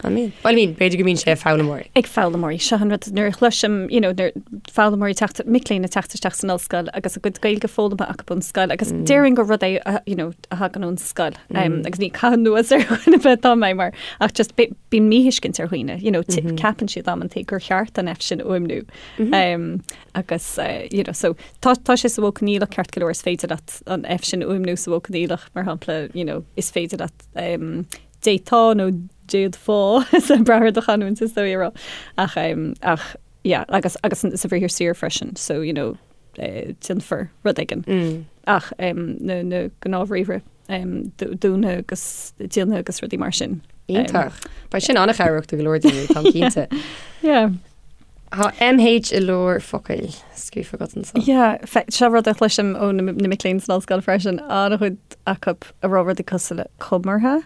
An mbíonn? Well, I mean, b'fhéidir go mbíonn sé ag foghlaimeoirí. Ag foghlaimeoirí. Seo an rud, nuair a chloisim, you know, nuair foghlaimeoirí teacht, mic léinn ag teacht isteach san ollscoil agus a gcuid Gaeilge foghlamtha acu ón scoil agus déarfainn gur rud é, a, you know, a thagann ón scoil. Um, agus ní caitheamh anuas ar dhuine ar bith atá mé mar, ach just bíonn míthuiscint ar dhaoine, you know, ceapann siad amantaí gur cheart an F sin a fhuaimniú. Um, agus, uh, you know, so tá, tá sé sa mhodh coinníollach ceart go leor is féidir leat an F sin a fhuaimniú sa mhodh coinníollach, mar shampla, you know, is féidir leat um, d'fhéadfá nó d'fhéadfá, is ag brath ar do chanúint is dóigh a rá. Ach, ach, yeah, agus, agus sa bhriathar saor freisin, so, you know, eh, déanfar rud éigin. Mm. Ach um, na, na gnáthbhriathra um, dúnfaidh agus déanfaidh agus rudaí mar sin. Iontach. Beidh sin an-chabhrach do go leor daoine, táim cinnte. Yeah. Tá MH i lár focail scríofa agat anseo. Yeah, seo rud a chloisim ó na mic léinn san ollscoil freisin, an-chuid acu ag rá rudaí cosúil le comartha.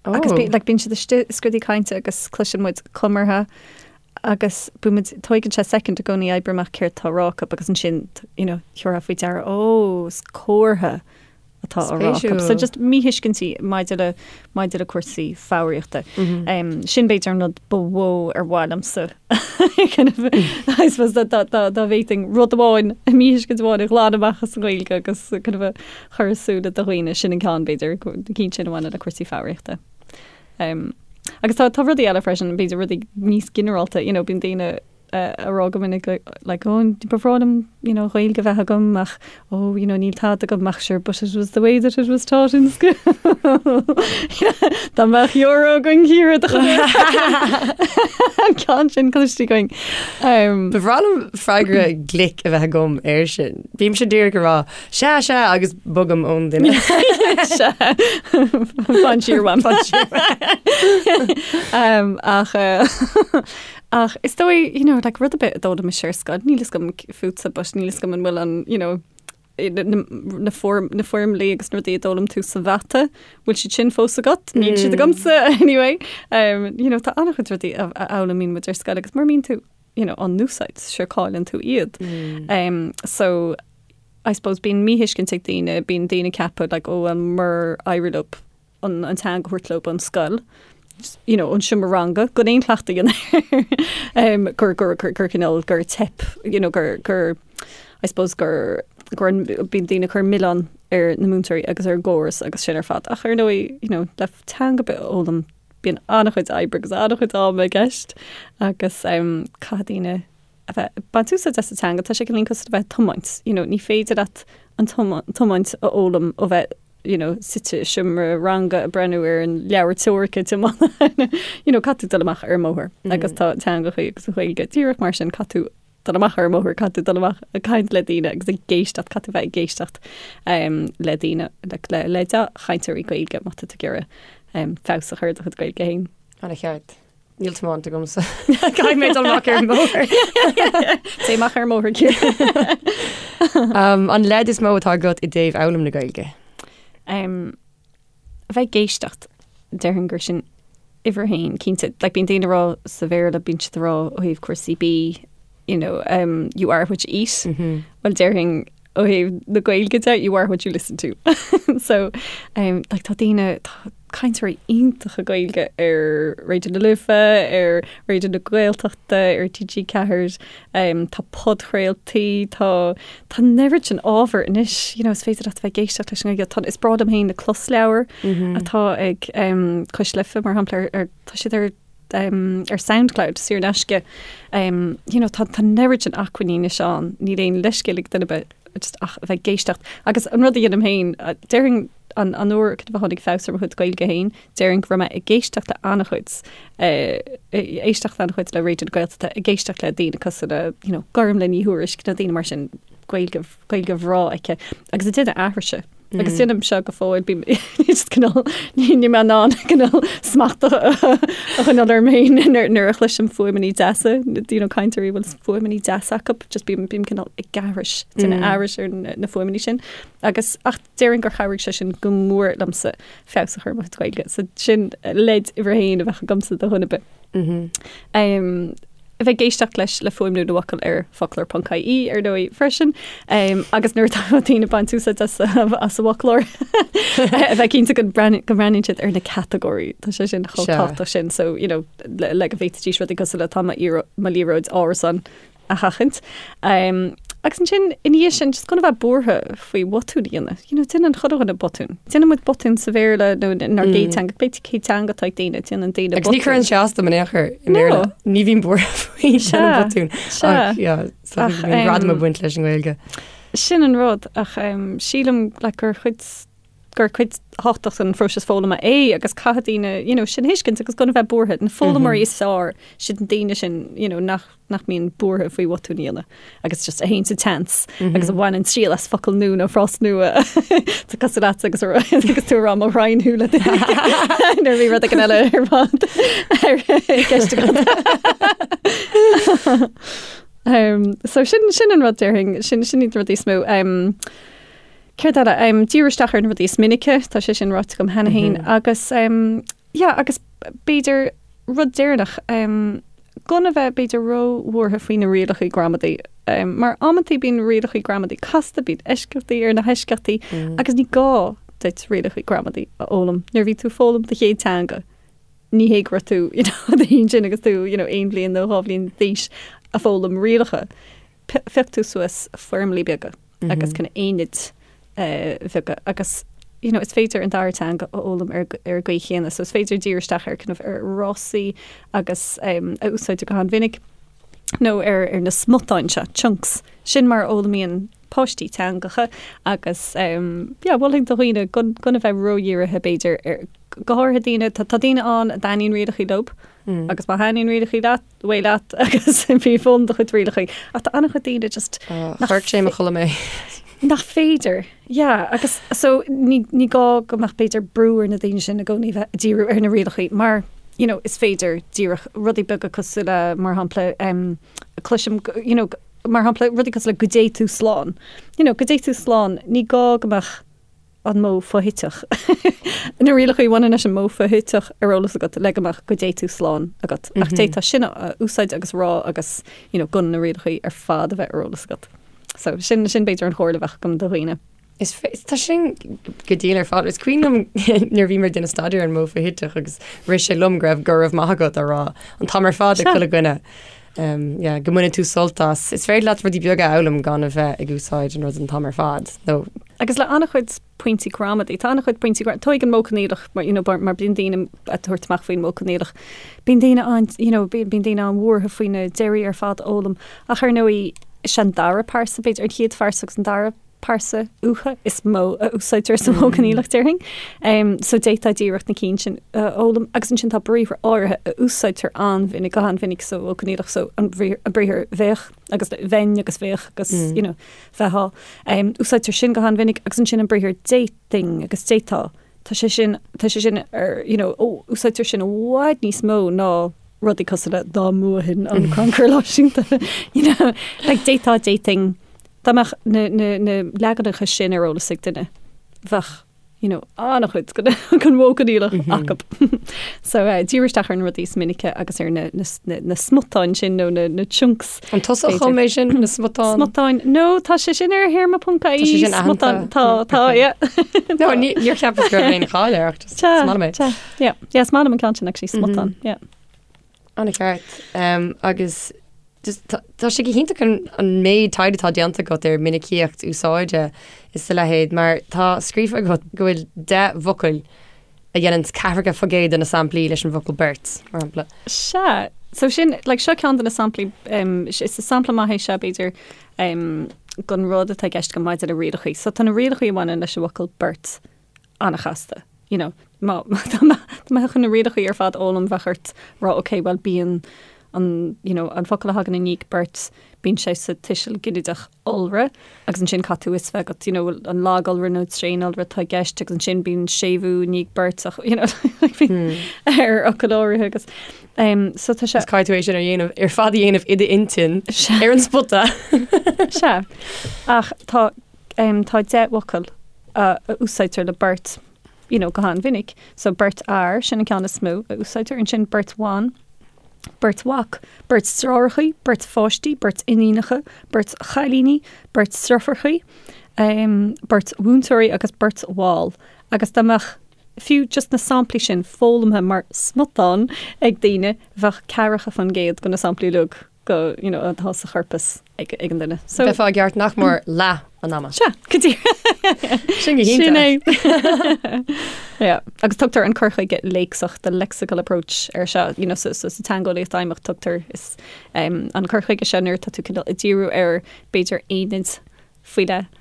Agus bí, like, bíonn siad istigh i scrúdú cainte agus cloiseann muid comartha agus bíonn muid, tóigeann sé soicind i gcónaí oibriú amach céard tá á rá acu agus ansin, you know, thiúrfá faoi deara, ó, is comhartha atá á rá acu. So just míthuiscintí maidir le, maidir le cúrsaí foghraíochta. Um, sin b'fhéidir an rud ba mhó ar mhaith liomsa kind of, I suppose dá, dá, dá, dá bhféadfainn rud amháin, míthuiscint amháin a ghlanadh amach as an Ghaeilge agus kind of a chur i súile do dhaoine, sin an ceann b'fhéidir, na cinn sin a bhaineann le cúrsaí foghraíochta. Um, agus tá, tá rudaí eile freisin, b'fhéidir rudaí níos ginearálta, you know, bíonn daoine ag rá go minic like oh ba bhreá liom you know Gaeilge a bheith agam ach oh you know níl tada agam ach sure but it was the way that it was taught in school. Dá mbeadh euro againn Ciara do an ceann sin cloiste againn. Um, Ba bhreá liom freagra glic a bheith agam air sin. Bímse díreach ag rá sea sea agus bogaim ón duine. Sea. Fan siar uaim. Fan siar um, ach uh, Ach is dóigh, you know, like rud ar bith a d'fhoghlaim mise ar scoil, níl fhios agam fútsa, but níl fhios agam an bhfuil an, you know, na, na, na, foirm, na foirmlí agus na rudaí a d'fhoghlaim tú sa mhata, bhfuil siad sin fós agat? Níl siad agamsa anyway. Um, you know, tá an-chuid rudaí a, a fhoghlaimíonn muid ar scoil agus mura mbíonn tú, you know, á n-úsáid, sure cailleann tú iad. Um, so, I suppose bíonn míthuiscint ag daoine, bíonn daoine ag ceapadh, like, oh, well, murar éirigh leo an teanga a thabhairt leo ón scoil, you know, ón seomra ranga, gan aon chleachtadh a dhéanamh air, gur, gur, gur, gur cineál, gur teip, you know, gur, gur, I suppose gur, gur an, bíonn daoine ag cur milleán ar na múinteoirí agus ar an gcóras agus sin ar fad. Ach ar ndóigh, you know, le teanga ar bith a fhoghlaim, bíonn an-chuid oibre agus an-chuid ama i gceist agus um, caithfidh daoine a bheith ag baint úsáid as an teanga, tá sé cineál cosúil le bheith ag tiomáint, you know, ní féidir leat an tiomáint a fhoghlaim ó bheith you know, suite i seomra ranga ag breathnú ar an leabhar teoirice tiomána, you know, caithfidh tú dul amach ar an mbóthar agus tá teangachaí agus an Ghaeilge díreach mar sin, caithfidh tú dul amach ar an mbóthar, caithfidh tú dul amach ag caint le daoine agus ag éisteacht, caithfidh tú bheith ag éisteacht um, le daoine, le, le, le dea-chainteoirí Gaeilge má tá tú ag iarraidh um, feabhas a chur ar do chuid Gaeilge féin. An-cheart. Níl tiomáint agamsa. Caithfidh mé dul amach ar an mbóthar. Téigh amach ar an mbóthar Ciara. Um, an leid is mó atá agat i dtaobh fhoghlaim na Gaeilge? Um, a bheith ag éisteacht, déarfainn gur sin uimhir a haon, cinnte. Like, bíonn daoine ag rá sa Bhéarla, bíonn siad ag rá ó thaobh cúrsaí bídh, you know, um, you are what you eat. Mm -hmm. Well, déarfainn ó thaobh na Gaeilge de, you are what you listen to. So, um, like, tá daoine, tá cainteoirí iontacha Gaeilge ar Raidió na Life, ar Raidió na Gaeltachta, ar TG4, um, tá podchraoltaí, tá, tá an oiread sin ábhar anois, you know, is féidir leat a bheith ag éisteacht leis an nGaeilge. Tá, is breá liom féin na closleabhair mm -hmm. atá ag um, Cois Life, mar shampla, ar, ar, tá siad ar ar Soundcloud saor in aisce. You know, tá tá an oiread sin acmhainní anois ann, níl aon leithscéal ag duine ar bith just ach a bheith ag éisteacht. Agus an rud a dhéanaim féin, déarfainn an an uair a tháinig feabhas ar mo chuid Gaeilge féin, déarfainn go raibh mé ag éisteacht le an-chuid, éisteacht an-chuid le Raidió na Gaeltachta, ag éisteacht le daoine cosúil le, you know, Gormlaith Ní Thuairisg, nó daoine mar sin, Gaeilge, Gaeilge bhreá aici. Agus ag déanamh aithrise. Agus déanaim seo go fóill, bím just cineál, níl mé in ann cineál smacht a choinneáil orm féin nuair a chloisim fuaimeanna deasa, you know, cainteoirí a bhfuil fuaimeanna deasa acu, just bím bím cineál ag aithris, déanamh aithris ar na fuaimeanna sin. Agus ach déarfainn gur chabhraigh sé sin go mór liomsa feabhas a chur ar mo chuid Gaeilge. So sin leid uimhir a haon a bheadh agamsa do dhuine ar bith. A bheith ag éisteacht leis le fuaimniú na bhfocal ar foclóir.ie ar ndóigh freisin. Agus nuair atá daoine ag baint úsáid as as an bhfoclóir a bheith cinnte go mbreathnaíonn siad ar na catagóirí. Tá sé sin chomh tábhachtach sin so you know le go bhféadfaidís rudaí cosúil le tá mo liathróid árasán a sheachaint. Agus ansin, ina dhiaidh sin, just gan a bheith buartha faoi bhotúin a dhéanamh. You know, déanann chuile dhuine botún. Déanann muid botún sa Bhéarla nó inár gcéad teanga, cibé cén teanga atá ag daoine, déanann daoine botún. Agus ní chuireann sé as dom in aon chor i mBéarla. Ní bhím buartha faoi déanamh botún. Ach, yeah, so bíonn gradam ag baint leis an nGaeilge. Sin an rud, ach sílim like gur chuid gur cuid thábhachtach den phróiseas foghlama é agus caithfidh daoine you know, sin a thuiscint agus gan a bheith buartha. Na foghlaimeoirí is fearr, siad na daoine sin you know, nach, nach mbíonn buartha faoi bhotúin a dhéanamh agus just a théann sa tseans agus a bhaineann triail as focal nua nó frás nua Tá cosúil leat agus agus tú ag rá mo ghraidhin thú le nuair a bhí rud éigin eile ar fad ar gceist agat. Um, so sin sin an rud déarfainn sin sin iad na rudaí is mó. Um, Céard eile? Díriú isteach ar na rudaí is minice, tá sé sin ráite agam cheana féin, agus yeah, agus b'fhéidir rud deireanach, gan a bheith b'fhéidir ró-bhuartha faoi na rialacha gramadaí, mar amantaí bíonn rialacha gramadaí casta, bíonn eisceachtaí ar na heisceachtaí, agus ní gá duit rialacha gramadaí a fhoghlaim nuair a bhí tú ag foghlaim do chéad teanga. Ní hé go raibh tú, you know, ansin agus tú, you know, aon bhliain nó dhá bhliain d'aois ag foghlaim rialacha. Phioc tú suas foirmlí beaga agus kind of aonaid bheaga agus you know, is féidir an dara teanga a fhoghlaim ar ar an gcaoi chéanna, so is féidir díriú isteach ar kind of ar fhrásaí agus um, a úsáidtear go han-mhinic nó ar ar na smutáin seo, chunks. Sin mar a fhoghlaimíonn páistí teangacha agus um, yeah, mholfainn do dhaoine gan gan a bheith ródhírithe b'fhéidir ar go háirithe daoine tá tá daoine ann a dtaitníonn rialacha leo agus má thaitníonn rialacha leat away leat agus bí ag foghlaim do chuid rialacha. Ach tá an-chuid daoine just Chuirfeadh sé mo chodladh mé. Nach féidir. Yeah, agus so ní, ní gá go mbeadh b'fhéidir brú ar na daoine sin i gcónaí bheith ag díriú ar na rialacha mar you know, is féidir díreach rudaí beaga cosúil le mar shampla um, cloisim you know, mar shampla rudaí cosúil le go dté tú slán. You know, go dté tú slán, ní gá go mbeadh an modh foshuiteach. Na rialacha a bhaineann leis an modh foshuiteach ar eolas agat le go mbeadh go dté tú slán agat. Ach d'fhéadfá sin a úsáid agus a rá agus you know, gan na rialacha ar fad a bheith ar eolas agat. So sin sin b'fhéidir an chomhairle a bheadh agam do dhaoine. Is tá sin go diail ar fad. Is cuimhin liom nuair a bhí mé ag déanamh staidéar ar an modh foshuiteach agus rith sé liom go raibh go raibh maith agat á rá an t-am ar fad ag chuile dhuine. Um, yeah, go mbaineann tú sult as. Is féidir leat rudaí beaga a fhoghlaim gan a bheith ag úsáid an rud an t-am ar fad. Nó. Agus le an-chuid pointí gramadaí, tá an-chuid pointí gramadaí, tóig an modh coinníollach, mar, you know, mar bíonn daoine ag tabhairt amach faoin modh coinníollach. Bíonn daoine an, you know, bíonn daoine an-bhuartha faoi na deirí ar fad a fhoghlaim. Ach ar ndóigh, is é an dara pearsa, b'fhéidir, an chéad phearsa agus an dara pearsa uatha is mó a úsáidtear sa mhodh coinníollach, déarfainn. So d'fhéadfá díreach na cinn sin a fhoghlaim. Agus ansin tá briathra áirithe a úsáidtear an-mhinic, go han-mhinic sa mhodh coinníollach, so an briathar bheadh agus bheinn agus bheadh agus you know, bheifeá. Úsáidtear sin go han-mhinic agus ansin an briathar d'fhéadfainn agus d'fhéadfá. Tá sé sin, tá sé sin ar, you know, ó, úsáidtear sin i bhfad níos mó ná rudaí cosúil le dá mbuafainn an Crannchur Náisiúnta, you know, like d'fhéadfá, d'fhéadfainn, dá mbeadh na, na, na leaganacha sin ar eolas ag duine, bheadh, you know, an-chuid den, den mhodh coinníollach acu. So, eh, díriú isteach ar na rudaí is minice agus ar na, na, na, na smutáin sin nó na, na chunks. An tusa a chum é sin, na smutáin? Smutáin. No, tá sé sin ar théarma ponc ie. Tá sé sin aitheanta. Smutáin. Tá, tá, yeah. No, níor cheapas go raibh aon cháil air ach just is maith liom é. Tá, yeah. Yeah, is maith liom an ceann sin actually, smutáin, yeah. An-cheart. Um, agus just tá tá sé go hiontach an, an méid taighde atá déanta agat ar minicíocht úsáide is a leithéid, mar tá scríofa agat go bhfuil 10 bhfocal a dhéanann 40% de na samplaí leis an bhfocal beirt, mar shampla. Sea. So sin, like, seo ceann de na samplaí, um, is sampla maith é seo, b'fhéidir, um, den rud atá i gceist agam maidir le rialacha. So tá na rialacha a bhaineann leis an bhfocal beirt an-chasta. You know, má, má, dá mbeadh chun na rialacha ar fad a fhoghlaim, bheadh ort rá, ok, bhuel, bíonn. an, you know, an focal a thagann i ndiaidh beirt, bíonn sé sa tuiseal ginideach iolra agus ansin caithfidh tú fhios bheith agat, you know, an lag-iolra nó tréan-iolra atá i gceist agus ansin bíonn séimhiú i ndiaidh beirt ach, you know, like bíonn ar fhocail áirithe agus um, so tá sé. Is caithfidh tú é sin a dhéanamh ar fad a dhéanamh i d'intinn ar an spota. Sea. Ach tá um, tá 10 bhfocal a, a úsáidtear le beirt you know, go han-mhinic. So beirt fhear, sin an ceann is mó a úsáidtear, ansin beirt bhan, beirt mhac, beirt deartháireacha, beirt pháistí, beirt iníonacha, beirt chailíní, beirt deirfiúracha, um, beirt mhúinteoirí agus beirt bhall. Agus dá mbeadh fiú just na samplaí sin foghlamtha mar smután ag daoine, bheadh 40% de na samplaí uilig go, you know, atá sa chorpas ag, ag an duine. So, Bheifeá i gceart nach mór leath an ama. Sea, go díreach. Sin go hiontach. Sin é. Yeah. Agus tugtar an cur chuige léacsach, the lexical approach ar seo, you know, so, so, sa teangeolaíocht fheidhmeach tugtar is, um, an cur chuige seo nuair atá tú cineál ag díriú ar b'fhéidir aonaid faoi leith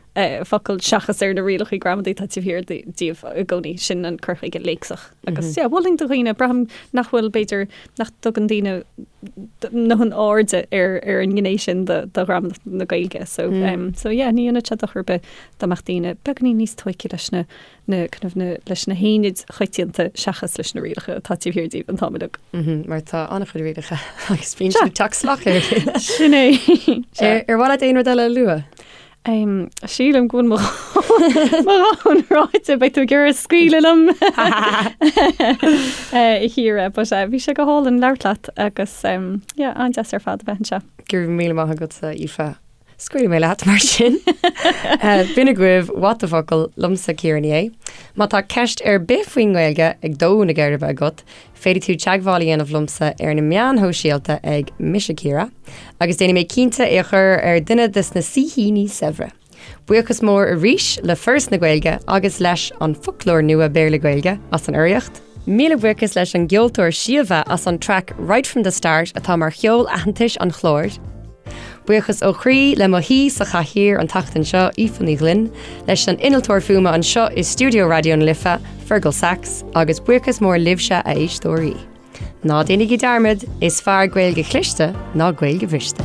focal seachas ar na rialacha gramadaí atá taobh thiar díobh i gcónaí, sin an cur chuige léacsach. Agus yeah, mholfainn do dhaoine, braithim nach bhfuil, b'fhéidir, nach dtugann daoine a ndóthain airde ar ar an ngné sin de de ghramadach na Gaeilge. So, um, so yeah, ní dhéanfadh sé dochar ar bith dá mbeadh daoine beagáinín níos tóigthe leis na na kind of na leis na haonaid choitianta seachas leis na rialacha atá taobh thiar díobh an t-am uilig. Mar tá an-chuid rialacha agus bíonn siad ag teacht salach ar a chéile. Sin é. Ar mhaith leat aon rud eile a lua? Sílim go bhfuil mo dhóthain ráite, beidh tú ag iarraidh scaoileadh liom a Chiara, but bhí sé go hálainn labhairt leat agus yeah, an-deas ar fad a bheith anseo. Go raibh míle maith agatsa, Aoife. Scaoilfidh mé leat mar sin. B'in agaibh What the Focal liomsa Ciara Ní É. Má tá ceist ar bith faoin nGaeilge ag dó na geirbe agat, féadfaidh tú teagmháil a dhéanamh liomsa ar na meáin shóisialta ag Mise Ciara, agus déanfaidh mé cinnte é a chur ar duine de na saoithíní saibhre. Buíochas mór arís le Foras na Gaeilge agus leis An Foclóir Nua Béarla-Gaeilge as an urraíocht. Míle buíochas leis an gceoltóir Síomha as an traic Right From The Start atá mar cheol aitheantais an chláir. Buíochas ó chroí le mo shaoi sa chathaoir an tseachtain seo, Aoife Ní Ghlinn, leis an innealtóir fuaime anseo i stiúideo Raidió na Life, Fergal Sachs, agus buíochas mór libhse a éisteoirí. Ná déanaigí dearmad, is fearr Gaeilge chliste ná Gaeilge bhriste.